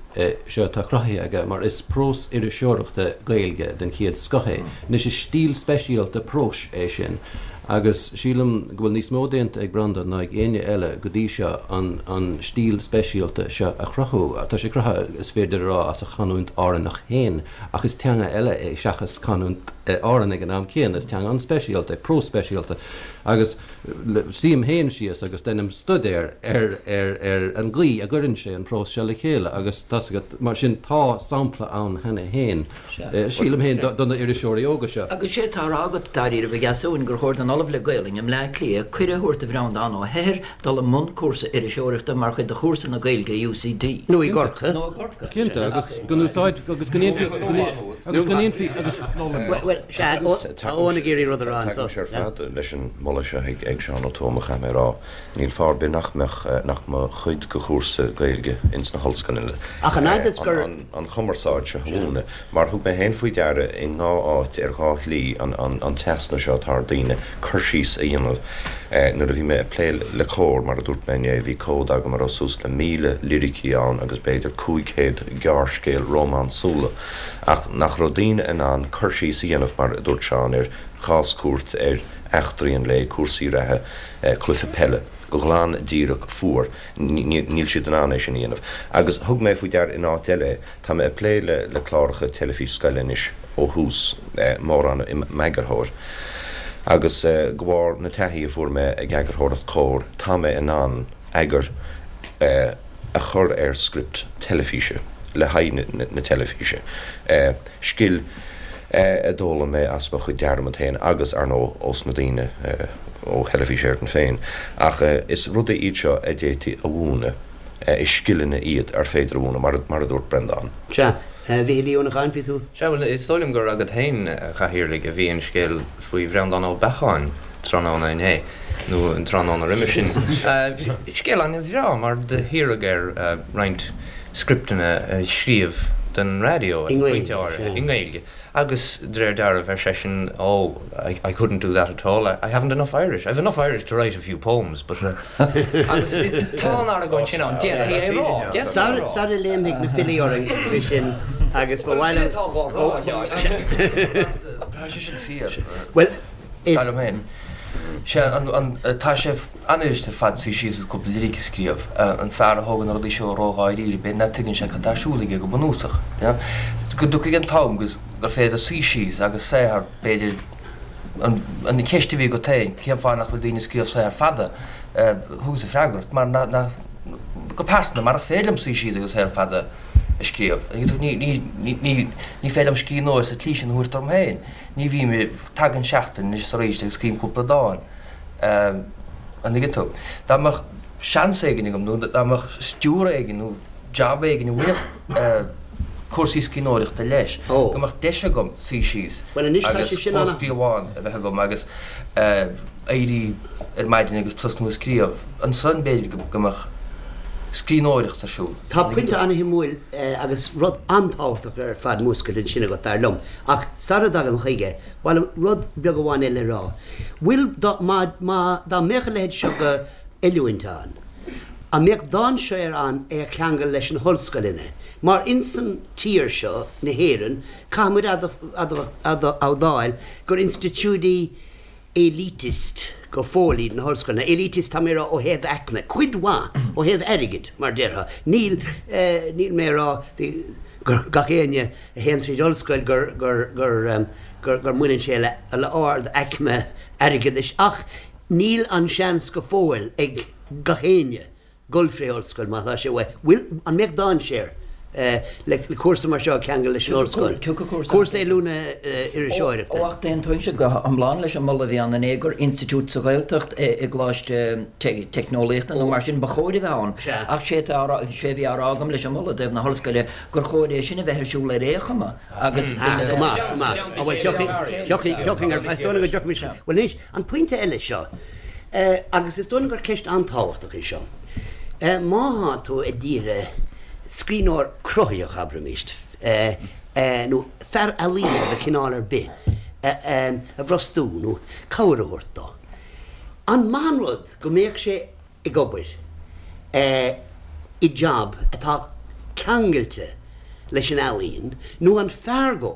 seo atá cruthaithe aige, mar is prós iriseoireachta Gaeilge den chéad scoth é. Anois, is stíl speisialta próis é sin, agus sílim go bhfuil níos mó déanta ag Breandán ná ag éinne eile go dtí seo an an stíl speisialta seo a chruthú. Tá sé cruthaithe, is féidir a rá, as a chanúint Árannach féin, ach is teanga eile é seachas canúint Árann ag an am céanna. Is teanga an-speisialta é, prós speisialta, agus. Suím féin síos agus deinim stuidéar ar ar an gcaoi a gcuireann sé an prós seo le chéile agus tá's agat, mar sin tá sampla ann cheana féin, sílim féin, do na iriseoirí óga seo. Agus sé atá á rá agat, dáiríribh, a Dheasúin, gur chóir don Ollamh le Gaolainn i mBleá Cliath cuireadh a thabhairt do Bhreandán Ó hEithir dul i mbun cúrsa iriseoireachta mar chuid de chúrsa na Gaeilge i UCD. Nó i gCorcaigh. Nó i gCorcaigh. Cinnte, agus go n-úsáid, agus go ndéanfaí, agus go ndéanfaí, agus. Bhuel, sea, tá Eoin ag iarraidh rud a rá anseo. Tagaimse ar fad leis an moladh seo ag Seán Ó Tuama, chaithfidh mé a rá. Níl fáth ar bith nach mbeadh, nach mba chuid de chúrsa Gaeilge ins na hollscoileanna Ach an fhad is gur. an chumarsáid seo a mhúineadh. Mar thug mé féin faoi deara i ndhá áit ar dhá shlí an an t-easnamh seo atá ar daoine cur síos a dhéanamh. Nuair a bhí mé ag plé le Comhar, mar a dúirt mé inné, bhí comhad agam a raibh suas le 1,000 liricí ann agus b'fhéidir 500 gearrscéal rómánsúla. Ach nach raibh daoine in ann cur síos a dhéanamh, mar a dúirt Seán, ar chás cúirte, ar eachtraí an lae, cúrsaí reatha, cluiche peile, go glan díreach fuar, níl siad in ann é sin a dhéanamh. Agus thug mé faoi deara in áit eile é, tá mé ag plé le cláracha teilifís scoile anois ó thús, mórán i m'eagarthóir, agus de bharr na taithí a fuair mé ag eagarthóireacht Comhar, tá mé in ann eagar a chur ar script teilifíse le haghaidh na teilifíse. Scil a d'fhoghlaim mé as mo chuid dearmad féin agus, ar ndóigh, ós na daoine ó Theilifís Éireann féin. Ach is rudaí iad seo a d'fhéadfaí a mhúineadh, is scileanna iad ar féidir a mhúineadh, mar a dúirt Breandán. Sea, a Mhichíl Uí Uanacháin, bhí tú. Sea, bhuel, is dóigh liom gur agat féin, a Chathaoirligh, a bhí an scéal faoi Bhreandán Ó Beacháin tráthnóna inné, nó an tráthnóna roimhe sin. Scéal an-bhreá, mar do hiarradh air roinnt scripteanna a scríobh don raidió ag pointe áirithe, i nGaeilge, agus de réir dealraimh, ar seisean, Oh, I couldn't do that at all, I haven't enough Irish, I've enough Irish to write a few poems, but. Agus tá an argóint sin ann, d'fhéadfaí é a rá, d'fhéadfaí é a rá. Sara léimfidh na filí orainn faoi sin agus ba mhaith liom. Tá sé sin fíor. Bhuel, is. Dar liom féin. Sé an, tá sé an-fhuirist ar fad suí síos agus cúpla liric a scríobh. An fear a thógann na rudaí seo ró-dháiríre, b'fhéidir nach dtuigeann sé cad tá ar siúl aige go bunúsach. Go dtiocfaidh an t-am agus gur féidir suí síos agus saothar, b'fhéidir, an cheist a bhí agat féin, cén fáth nach bhfuil daoine ag scríobh saothar fada, thugas an freagra, mar nach, go pearsanta, mar nach féidir liom suí síos agus saothar fada a scríobh. Ní, ní, ní, ní féidir liom scríbhneoir sa tslí sin a thabhairt orm féin. Ní bhím, tagann seachtain anois is arís agus scríobhaim cúpla dán. An dtuigeann tú? Dá mbeadh seans éigin agam nó dá mbeadh stiúradh éigin nó jab éigin a bhainfeadh cúrsaí scríbhneoireachta leis, go mbeadh deis agam suí síos agus clóscríobhán a bheith agam agus éirí ar maidin agus tosnú ag scríobh, ansan b'fhéidir go mbeadh scríbhneoireacht ar siúl. Tá pointe an-shuimiúil agus rud an-tábhachtach ar fad múscailte ansin agat, dar liom. Ach sara dtagaim chuige, ba mhaith liom rud beag amháin eile a rá. Bhfuil, dá, má, má, dá mbeadh a leithéid seo de oiliúint ann, an mbeadh dainséar ann é a cheangal leis na hollscoileanna? Mar insan tír seo, na hÉireann, caithfidh muid a admháil gur institiúidí élitist. Go fóill iad na hollscoileanna. Elitist tá mé a rá ó thaobh aicme, cuid mhaith ó thaobh airgid, mar déarfá. Níl, níl mé a rá gur gach éinne a théann tríd ollscoil gur, gur, gur, gur, gur mbaineann sé le, le ard aicme airgeadais ach níl an seans go fóill ag gach éinne dul fré ollscoil má tá sé uaidh. Bhfuil, an mbeadh dainséar le cúrsa mar seo a cheangal leis an ollscoil? Cúrsa oiliúna iriseoireachta. Ó ach d'aontóinnse go hiomlán leis an moladh a bhí ann inné gur institiúid sa Ghaeltacht i gcoláiste teicneolaíochta nó mar sin ba chóir a bheith ann. Ach sé atá á rá, sé a bhí á rá agam leis an moladh i dtaobh na hollscoile gur chóir é sin a bheith ar siúl ar aon chuma agus daoine a Go maith, go maith. Bhuel, tiocfaidh, tiocfaidh, tiocfaidh ar, is dóigh liom go dtiocfaimis, bhuel anois, An pointe eile seo, agus is dóigh liom gur ceist an-tábhachtach í seo, má thá tú ag iarraidh scríbhneoir cruthaitheach, abraimis, nó fear ealaíne de chineál ar bith a bhrostú nó cabhair a thabhairt dó, an maith an rud go mbeadh sé ag obair i jab atá ceangailte leis an ealaín nó an fearr dhó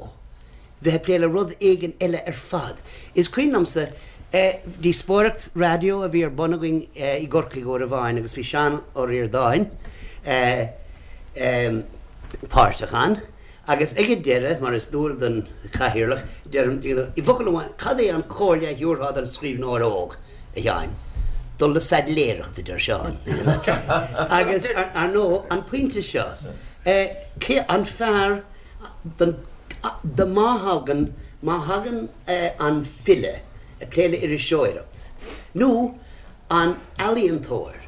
bheith ag plé le rud éigin eile ar fad. Is cuimhin liomsa díospóireacht raidió a bhí ar bun againn i gCorcaigh uair amháin agus bhí Seán Ó Ríordáin páirteach ann agus ag an deireadh, mar is dual don chathaoirleach, deirim, i bhfocal amháin, cad é an chomhairle a thabharfá don scríbhneoir óg, a Sheáin? Dul le saidléireacht, a deir Seán. Agus, ar ndóigh, an pointe seo, cé an fearr don do má thagann, má thagann an file ag plé le iriseoireacht, nó an ealaíontóir,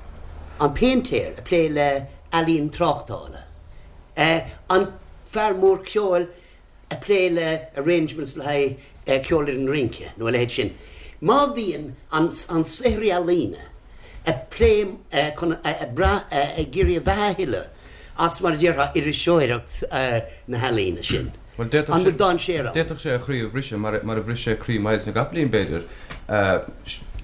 an péintéir ag plé le ealaín tráchtála, an fear mór ceoil ag plé le arrangements le haghaidh ceolfhoireann rince nó a leithéid sin, má bhíonn an an saothraí ealaíne ag plé chun ag brath ag iarraidh a bheatha a thuilleamh as, mar a déarfá, iriseoireacht na healaíne sin. Bhuel, d'fhéadfadh sé, d'fhéadfadh sé a chroí a bhriseadh, mar a bhris sé croí Myles na gCopaleen, b'fhéidir,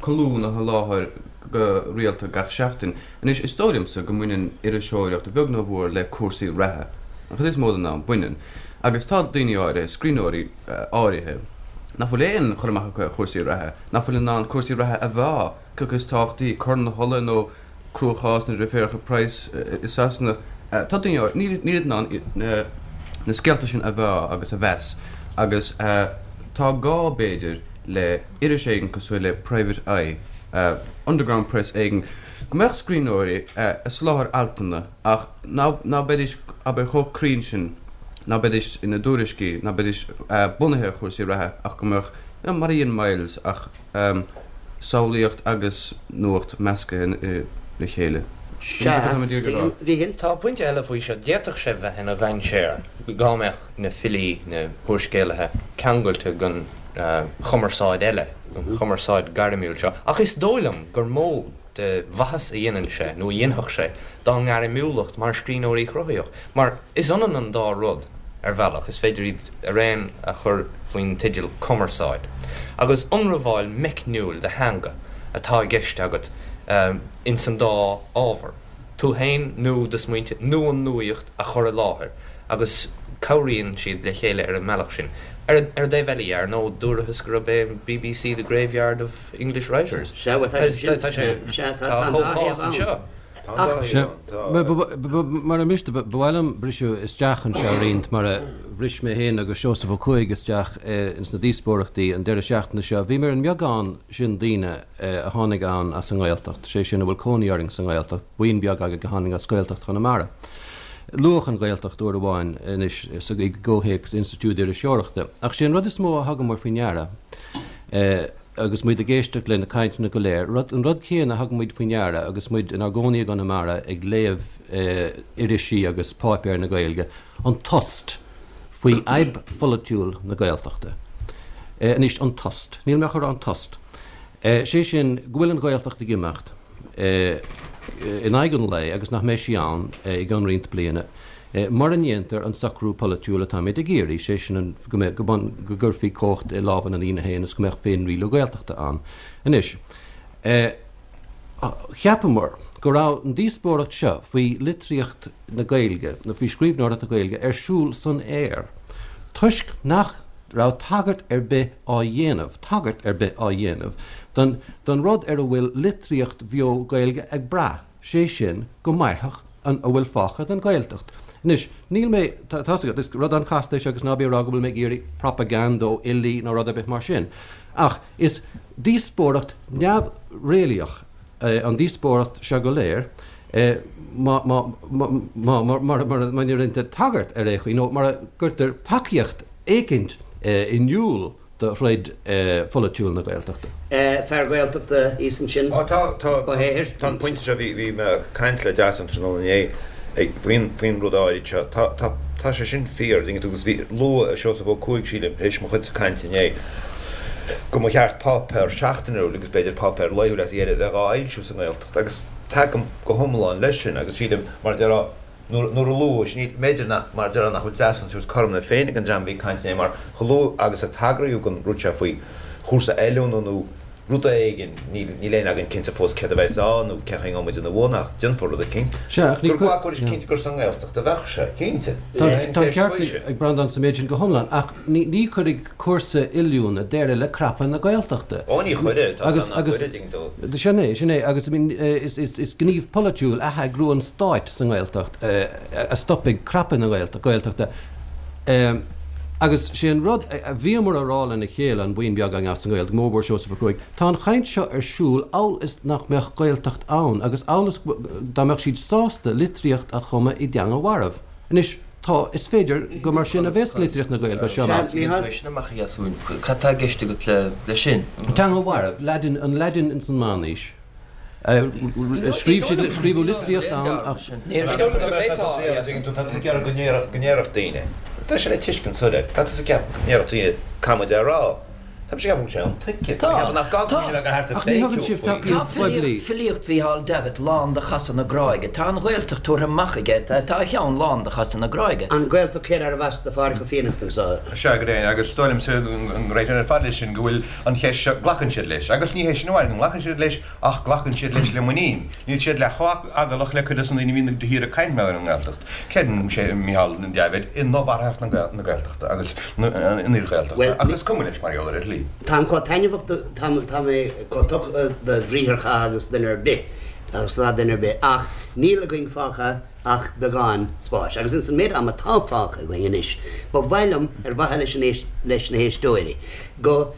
colún a sholáthar go rialta gach seachtain. Anois, is dóigh liomsa go mbaineann iriseoireacht, a bheag nó a mhór, le cúrsaí reatha. An chuid is mó den am, baineann. Agus tá daoine áirithe, scríbhneoirí áirithe, nach bhfuil aon chur amach acu ar chúrsaí reatha, nach bhfuil in ann cúrsaí reatha a mheá, cé acu is tábhachtaí, Corn na hUladh nó cruachás na ndrioféaracha Price i Sasana. Tá daoine áirithe, níl níl in ann na scéalta sin a mheá agus a mheas agus tá gá, b'fhéidir, le iris éigin cosúil le Private Eye, underground press éigin, go mbeadh scríbhneoirí ag soláthar altanna ach ná beidís, abair, chomh cruinn sin, ná beidís ina dtuairiscí, ná beidís bunaithe ar chúrsaí reatha ach go mbeadh, you know, mar a dhein Myles ach. Samhlaíocht agus nuacht measctha le chéile. Sea, bhí. Tá pointe eile faoi seo. D'fhéadfadh sé bheith ina dhainséar dá mbeadh na filí, na húrscéalaithe ceangailte den chumarsáid eile, an chumarsáid gairmiúil seo. Ach is dóigh liom gur mó de mhaitheas a dhéanann sé, nó a dhéanfadh sé, dá ngairmiúlacht mar scríbhneoirí cruthaitheach. Mar is ionann an dá rud, ar bhealach, is féidir iad araon a chur faoin teideal 'cumarsáid'. Agus ionramháil meicniúil de theanga atá i gceist agat ins an dá ábhar, tú féin nó do smaointe nó an nuaíocht a chur i láthair, agus cabhraíonn siad le chéile ar an mbealach sin. Ar an dtaobh eile dhe, ar ndóigh, dúrathas gurb é an bbc the graveyard of English writers. Sea, bhuel, tá sé sin, tá sé, sea, tá an dá thaobh ann. Sea, mura miste, ba mhaith liom briseadh isteach anseo roinnt, mar a bhris mé féin agus Seosamh Ó Cuaig isteach ins na díospóireachtaí an deireadh seachtaine seo. Bhíomar ar an mbeagán sin daoine a tháinig ann as an nGaeltacht, sé sin a bhfuil cónaí orainn sa nGaeltacht, buíon beag againn a tháinig as Gaeltacht Chonamara. Luadh an Ghaeltacht uair amháin anois i gcomhthéacs Institiúid Iriseoireachta, ach sé an rud is mó a thugamar faoi ndeara, agus muid ag éisteacht le na cainteanna go léir, rud, an rud céanna a thug muid faoi ndeara agus muid inár gcónaí i gConamara ag léamh irisí agus páipéir na Gaeilge, an tost faoi fhadhb pholaitiúil na Gaeltachta. Anois, an tost. Níl mé ach ag rá an tost. Sé sin, go bhfuil an Ghaeltacht ag imeacht in aghaidh an lae agus nach mbeidh sí ann i gcionn roinnt bliana. Mura ndéantar an socrú polaitiúil atáimid ag iarraidh, sé sin go mbeadh, go gcuirfí cumhacht i lámha na ndaoine féin is go mbeadh féinrialú Gaeltachta ann. Anois, cheapamar go raibh an díospóireacht seo faoi litríocht na Gaeilge, nó faoi scríbhneoireacht na Gaeilge, ar siúl san aer toisc nach. raibh tagairt ar bith á dhéanamh, tagairt ar bith á dhéanamh don, don rud ar a bhfuil litríocht bheo Gaeilge ag brath, sé sin, go mairfeadh an, a bhfuil fágtha den Ghaeltacht. Anois, níl mé, tá, tá's agat, is rud an-chasta é seo agus ná bí ag rá go bhfuil mé ag iarraidh propaganda ó fhilí nó rud ar bith mar sin. Ach is díospóireacht neamhréalaíoch an díospóireacht seo go léir, má, má, má, má, mura, mura, mura ndéantar tagairt ar aon chaoi nó mura gcuirtear tacaíocht éicint in iúl do throid pholaitiúil na Gaeltachta. Fear Gaeltachta thíos ansin, Ó tá, tá, Ó hEithir. tá an pointe seo, bhí, bhí mé ag caint le Deasún tráthnóna inné ag, faoin, faoin rud áirid seo. Tá, tá, tá sé sin fíor, dtuigeann tú, agus bhí, luadh Seosamh Ó Cuaig, sílim, tar éis mo chuidse cainte inné, go mba cheart páipéar seachtainiúil agus b'fhéidir páipéar laethúil as a dheireadh a bheith dhá fhoilsiú sa nGaeltacht agus tagaim go hiomlán leis sin agus sílim, mar a déarfá, nuair a luadh, is ní, b'fhéidir nach, mar a déarfá, nach bhfuil Deasún ag tabhairt cothrom na Féinne don dream a bhí ag caint inné mar chomh luath agus a tagraíodh don rud seo faoi chúrsa oiliúna nó rud éigin, níl, níl éinne againn cinnte fós céard a bheas ann nó cén chaoi a ngabhfaidh muid ina bhun ach déanfar rud eicínt. Sea, ach ní Gur ghlacfar cinnte gur sa nGaeltacht a bheadh sé, cinnte. Tá an ceart ag Breandán sa méid sin go hiomlán ach ní, ní chuirfidh cúrsa oiliúna deireadh le crapadh na Gaeltachta. Ó ní chuirfidh, tá san nach gcuirfidh, dtuigeann tú. Sin é, sin é, agus I mean is gníomh polaitiúil atheagrú an stáit sa nGaeltacht a stopfaidh crapadh na Gaeltachta. Agus sé an rud a bhíomar a rá lena chéile, an buíon beag againn as an nGaeltacht, go mórmhór Seosamh Ó Cuaig, tá an chaint seo ar siúl amhail is nach mbeadh Gaeltacht ann agus amhail is dá mbeadh siad sásta litríocht a chumadh i dteanga mharbh. Anois, tá, is féidir gur mar sin a bheas litríocht na Gaeilge as seo amach. Sea, Mícheál. Sin amach a Dheasúin. Cad tá i gceist agat leis sin? Teanga mharbh, Laidin, an Laidin ins an Meánaois. Scríobh siad, scríobhadh litríocht ann ach. Ní dóigh liom go bhféadfá a Dheasúin. Tá tusa ag iarraidh go ndéarfadh daoine. Tá sé le tuiscint soiléir. Tá tusa ag ceapadh go ndéarfadh daoine cad muid a rá. Tá mise ag ceapadh go bhfuil sé intuigthe. Tá mé ag ceapadh nach gá go mbeadh ag thart ar Ach ní thugann sibh tacaíocht phoiblí. Tá filíocht Mhícheál Davitt lán de chasadh na gráige. Tá an Ghaeltacht tabhartha amach aige. Tá a cheann lán de chasadh na gráige. An Ghaeltacht céard arbh as do Phádraig Ó Fiannachta anseo? Sea, go deimhin, agus is dóigh liomsa go réitíonn ar fad leis sin go bhfuil an cheist seo, glacann siad leis. Agus ní hé sin amháin go nglacann siad leis ach glacann siad leis le muinín. Níl siad leath chomh heaglach le cuid de na daoine a bhíonn de shíor ag caint mar gheall ar an nGaeltacht. Creideann sé, Micheál Davitt, i ndomharthacht na Gaeltachta agus an fhíor-Ghaeltachta ach is cuma leis mar gheall ar a shlí. Táim chomh taitneamhach do, tá, tá mé chomh tugtha do bhriatharchath agus duine ar bith, agus atá duine ar bith, ach níl againn fágtha ach beagán spáis. Agus ins an méid ama atá fágtha againn anois, ba mhaith liom, ar mhaithe leis an éist, leis na héisteoirí, go,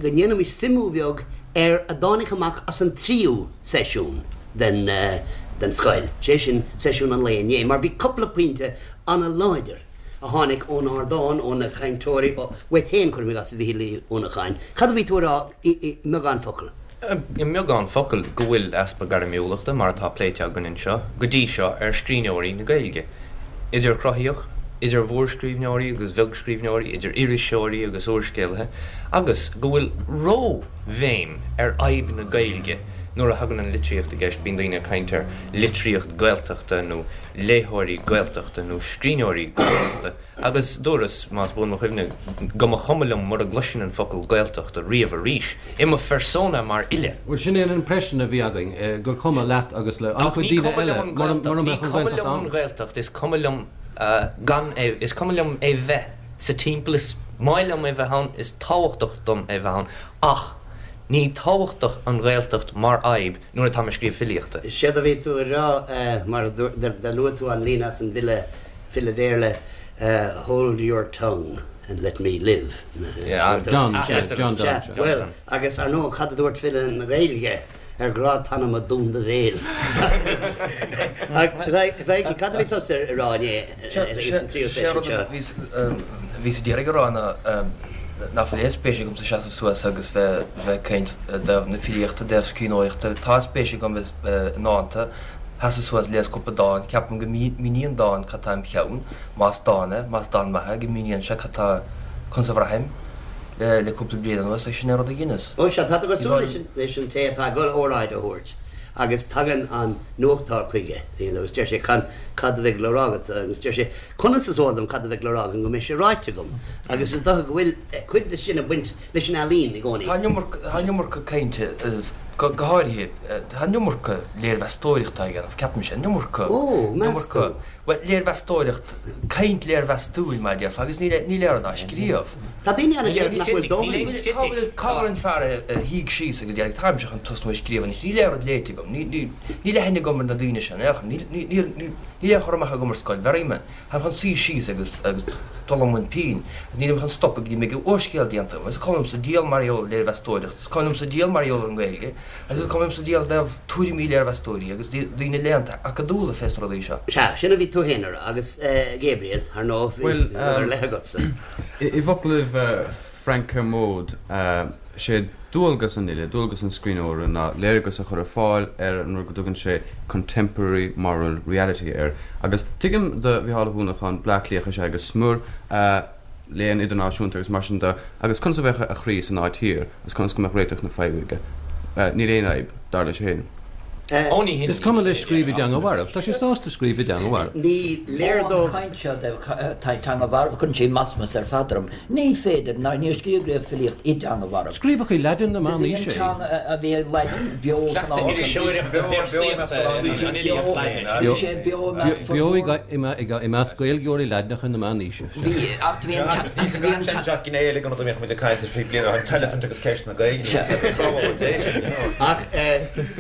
go ndéanfaimis suimiú beag ar a dtáinig amach as an tríú seisiún den den scoil, sé sin seisiún an lae inné, mar bhí cúpla pointe ana-láidir a tháinig ón ardán, ó na cainteoirí, uait féin, cuirim i gcás, a Mhichíl Uí Uanacháin. Cad a bhí tú a rá i mbeagán focal? I mbeagán focal, go bhfuil easpa gairmiúlachta, mar atá pléite againn anseo go dtí seo, ar scríbhneoirí na Gaeilge, idir chruthaíoch, idir mhórscríbhneoirí agus bheagscríbhneoirí, idir iriseoirí agus úrscéalaithe, agus go bhfuil ró-bhéim ar fhadhb na Gaeilge nuair a thagann an litríocht i gceist, bíonn daoine ag caint ar litríocht Gaeltachta nó léitheoirí Gaeltachta nó scríbhneoirí Gaeltachta. Agus dúras, más buan mo chuimhne, go mba chuma liom mura gcloisfinn an focal Gaeltacht riamh arís, i mo phersona mar fhile. Bhuel, sin é an impression a bhí againn, gur cuma leat agus le an-chuid daoine eile mura mbeadh an Ní cuma liom an Ghaeltacht, is cuma liom gan é, is cuma liom é bheith sa timpeall, is maith liom é bheith ann, is tábhachtach dom é bheith ann, ach ní tábhachtach an Ghaeltacht mar fhadhb nuair atá mé ag scríobh filíochta. Séard a bhí tú a rá, mar a luaigh tú an líne as an bhfile, file Béarla, Hold your tongue and let me live. Donne, sea, John Donne, sea. Bhuel, agus ar ndóigh, cad a dúirt file na Gaeilge, ar grá t'anama dún do bhéal. Ach, cad a bhí tusa a rá inné sa tríú seisiún seo? Bhíos a d'iarraidh a rá ná nach bhfuil aon spéis agamsa seasamh suas agus bheith ag caint i dtaobh na filíochta, i dtaobh scríbhneoireachta. Tá spéis agam i ndánta. Seasamh suas, léamh cúpla dán. Ceapaim go míníonn dán cad tá im cheann, más dán é, más dán maith é, go míníonn sé cad tá, conas a bhraithim le cúpla bliain anuas agus sin é an rud a dheineas. Ó sea, tá tú cosúil leis an té atá ag dul óráid a thabhairt agus tagann an nuachtóir chuige agus deir sé cad a bheidh le rá agat agus deir sé conas is eol dom cad a bheidh le rá agam go mbeidh sé ráite agam agus is dócha go bhfuil cuid de sin ag baint leis an ealaín i gcónaí. Tá an iomarca cainte, go háirithe, tá an iomarca léirmheastóireachta á dhéanamh, ceapaimse, an iomarca, Ó, meas tú? Bhuel, léirmheastóireacht, caint léirmheastúil, mar a déarfá, agus níl níl aon rud á scríobh. Tá daoine ann a deir nach bhfuil dóthain. Cá bhfuil cá bhfuil an fear a shuigh síos agus a deir táimse chun tosnú ag scríobh anois, níl aon rud léite agam, ní ní níl aithne agam ar na daoine seo in aon chor, níl níl níl níl níl aon chur amach agam ar scoil Mherriman, táim chun suí síos agus agus dul i mbun pinn agus nílim chun stopadh go dtí go mbeidh úrscéal déanta agam. Is cuma liomsa diabhal mar gheall ar léirmheastóireacht, is cuma liomsa diabhal mar gheall ar an nGaeilge, Agus is cuma liomsa diabhal i dtaobh tuairimí léirmheastóirí agus daoine léannta acadúla fés na rudaí seo. Sea, sin a bhí tú féin a rá, agus Gabriel, ar ndóigh, bhí rud ar leith agatsa. I bhfoclaibh Frank Kermode, sé dualgas an fhile, dualgas an scríbhneora ná léargas a chur ar fáil ar an rud go dtugann sé contemporary moral reality air. Agus tuigim do Mhícheál Ó hUanacháin, Bleá Cliathach is ea é go smior, léann idirnáisiúnta agus mar sin de, agus conas a bheadh a chroí san áit thiar agus conas go mbeadh réiteach na faidhbe aige? Níl aon fhadhb, dar leis féin. Is cuma leis scríobh i dteanga mharbh. Tá sé sásta scríobh i dteanga mharbh. Ní léir dó. An chaint seo de teanga mharbh, cuireann sé masmas ar fad orm. Ní féidir, ná níor scríobhadh riamh filíocht i dteanga mharbh. Scríobhadh i Laidin na Meánaoise é. Bhí an teanga a bhí ag Laidin beo san am sin. Iriseoireachta, véarsaíochta, an fhilíocht Laidine. Bhí sé beo i measc formhór. Beo i measc Gaeilgeoirí Laidneacha na Meánaoise. Bhí, ach bhí an Bhí an Bhí an Jack gné eile den rud a mbíodh muid ag caint air faoi bliain ó shin, an t-eilifint agus ceist na Gaeilge. Sábháil Dé sin, you know. Ach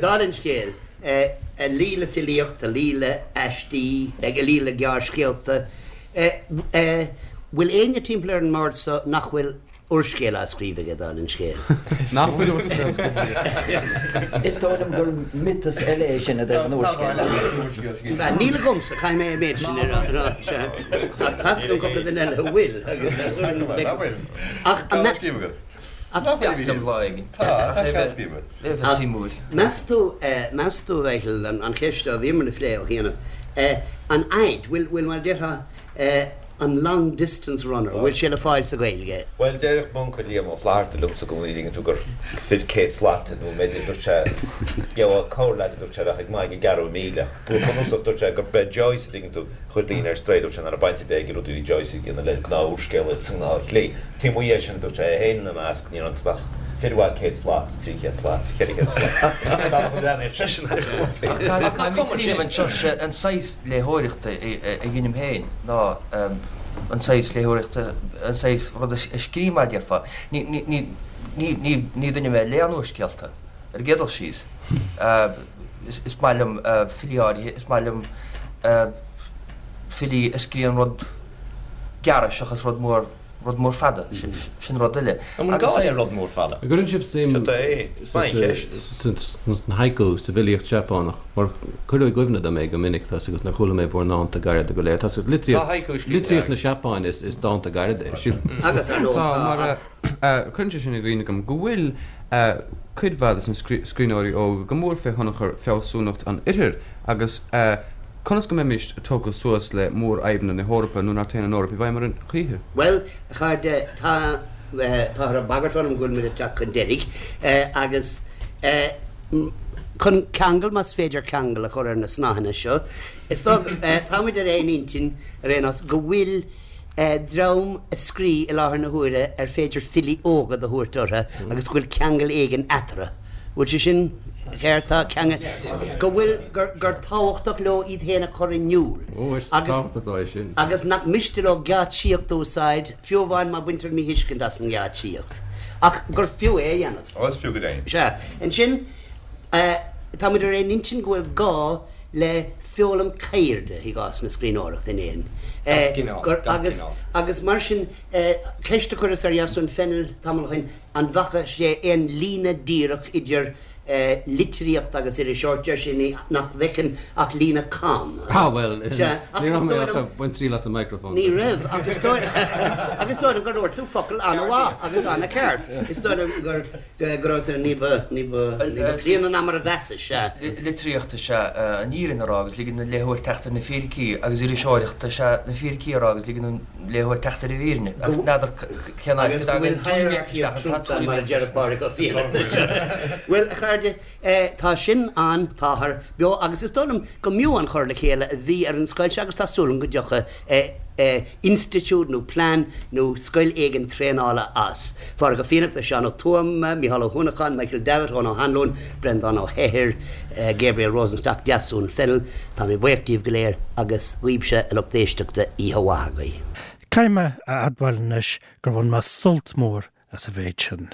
dála an scéil, a luí le filíocht, a luí le aistí, a luí le gearrscéalta, bhfuil éinne timpeall ar an mbord so nach bhfuil úrscéal á scríobh aige, dála an scéil? Nach bhfuil úrscéal á scríobh aige? Is dóigh liom gur miotas eile é sin i dtaobh an úrscéil. Níl agamsa, caithfidh mé an méid sin a rá. Ach tá 's agam cúpla duine eile a bhfuil agus tá súil agam go bhfeicfidh. Ach an mbeadh. Meas tú, meas tú, a Mhichíl, an cheist seo a bhíomar a phlé ó chianaibh, an fhaid, bhfuil, bhfuil mar a déarfá, an long distance runner, bhfuil sé le fáil sa Ghaeilge? Bhuel, déarfadh m'uncail Liam Ó Flaithearta liomsa i gcónaí, an dtuigeann tú, gur fir 100 slat nó b'fhéidir, dúirt sé, gheobhá corrleaid, a dúirt sé, a bheadh ag maíomh ag gearradh míle. Go bunúsach, dúirt sé, gur b'é Joyce, an dtuigeann tú, chuir daoine ar strae, dúirt sé, nach raibh baint ar bith ag rudaí a bhí Joyce a dhéanamh le gnáth-úrscéalaíocht sa ngnáthshlí. Taobh amuigh dhe sin, dúirt sé, é féin ina measc, ní raibh iontu ach fir mhaith 100 slat, 300 slat, 400 slat. Bealach a bhreathnaíodh seisean ar chúrsaí. Ach tá cuimhne anseo, sé an saghas léitheoireachta a dheinim féin ná an saghas léitheoireachta, an saghas rud a scríobh mar a déarfá. Ní, ní, ní, ní, ní, ní duine mé a léann úrscéalta, ar an gcéad dul síos. Is maith liom filí áirithe, is maith liom filí a scríobhann rud gearr seachas rud mór. rud mór fada, sin rud eile. An bhfuil gá le rud mór fada? An gcuireann sibh suim sna haiku, sa bhfilíocht Seapánach? Mar cuireadh i gcuimhne dom é go minic, tá's agat, nuair a chuala mé bhur ndánta gairide go léir. Tá's agat, litríocht na Seapáine is dánta gairide é, sílim. Agus ar ndóigh tá. Mar cuireann sé sin i gcuimhne dom go bhfuil cuid mhaith de na scríbhneoirí óga go mór fé thionchar fealsúnacht an Oirthir agus Conas go mbeimis tógtha suas le mórfhadhbanna na hEorpa nuair nach dtéann an Eoraip i bhfeidhm orainn choíche? Bhuel, a chairde, tá, táthar ag bagairt orm go bhfuil muid ag teacht chun deiridh, agus chun ceangal, más féidir ceangal a chur ar na snáitheanna seo, is dóigh, tá muid ar aon intinn, ar aon nós, go bhfuil dream ag scríobh i láthair na huaire ar féidir filí óga do thabhairt orthu agus go bhfuil ceangal éigin eatarthu. Bhfuil sé sin ceart? Tá ceangal, go bhfuil, gur, gur tábhachtach leo iad féin a chur in iúl. Ó, is tábhachtach leo é sin. Agus nach miste leo geáitsíocht a úsáid, fiú amháin má baintear míthuiscint as an ngeáitsíocht. Ach gur fiú é a dhéanamh. Ó, is fiú go deimhin. Sea. Ansin, tá muid ar aon intinn go bhfuil gá le foghlaim ceirde i gcás na scríbhneoireachta in Éirinn. Gach cineál, Gur, gach agus, cineál. agus mar sin, ceist a chuireas ar Dheasún Fennell tamall ó shin, an bhfaca sé aon líne díreach idir litríocht agus iriseoireacht, deir sé nach bhfeiceann ach líne cam. Ah, bhuel, Sea, ach ní is raibh mé dóigh ach liom, ag baint triail as an microphone. ní raibh, ach is dóigh, ach is dóigh liom gur dhúirt tú focal an-mhaith agus an-cheart. Is dóigh liom gur, go raibh tú ní ba, ní ba, ní ba críonna ná mar a mheasais, sea. Litríocht is ea an fhírinne a rá agus ligean don léitheoir teacht ar na fíricí agus iriseoireacht is ea na fíricí a rá agus ligean don léitheoir teacht ar an bhfírinne. Ach n'fheadar cén áit Agus go bhfuil hierarchy of truths ann mar a deir Pádraig Ó Fiaich. Bhuel, a chairde, tá sin ann, táthar beo agus is dóigh liom go mb'fhiú an chur le chéile a bhí ar an scoil seo agus tá súil agam go dtiocfaidh. Institiúid nó plean nó scoil éigin traenála as. Pádraig Ó Fiannachta, Seán Ó Tuama, Mícheál Ó hUanacháin, Michael Davitt, Eoin Ó hAnluain, Breandán Ó hEithir, Gabriel Rosenstock, Deasún Fennell, tá mé buíoch díobh go léir agus dhaoibhse a lucht éisteachta, oíche mhaith agaibh. Caithfidh mé a admháil anois gur bhain mé sult mór as an mhéid sin.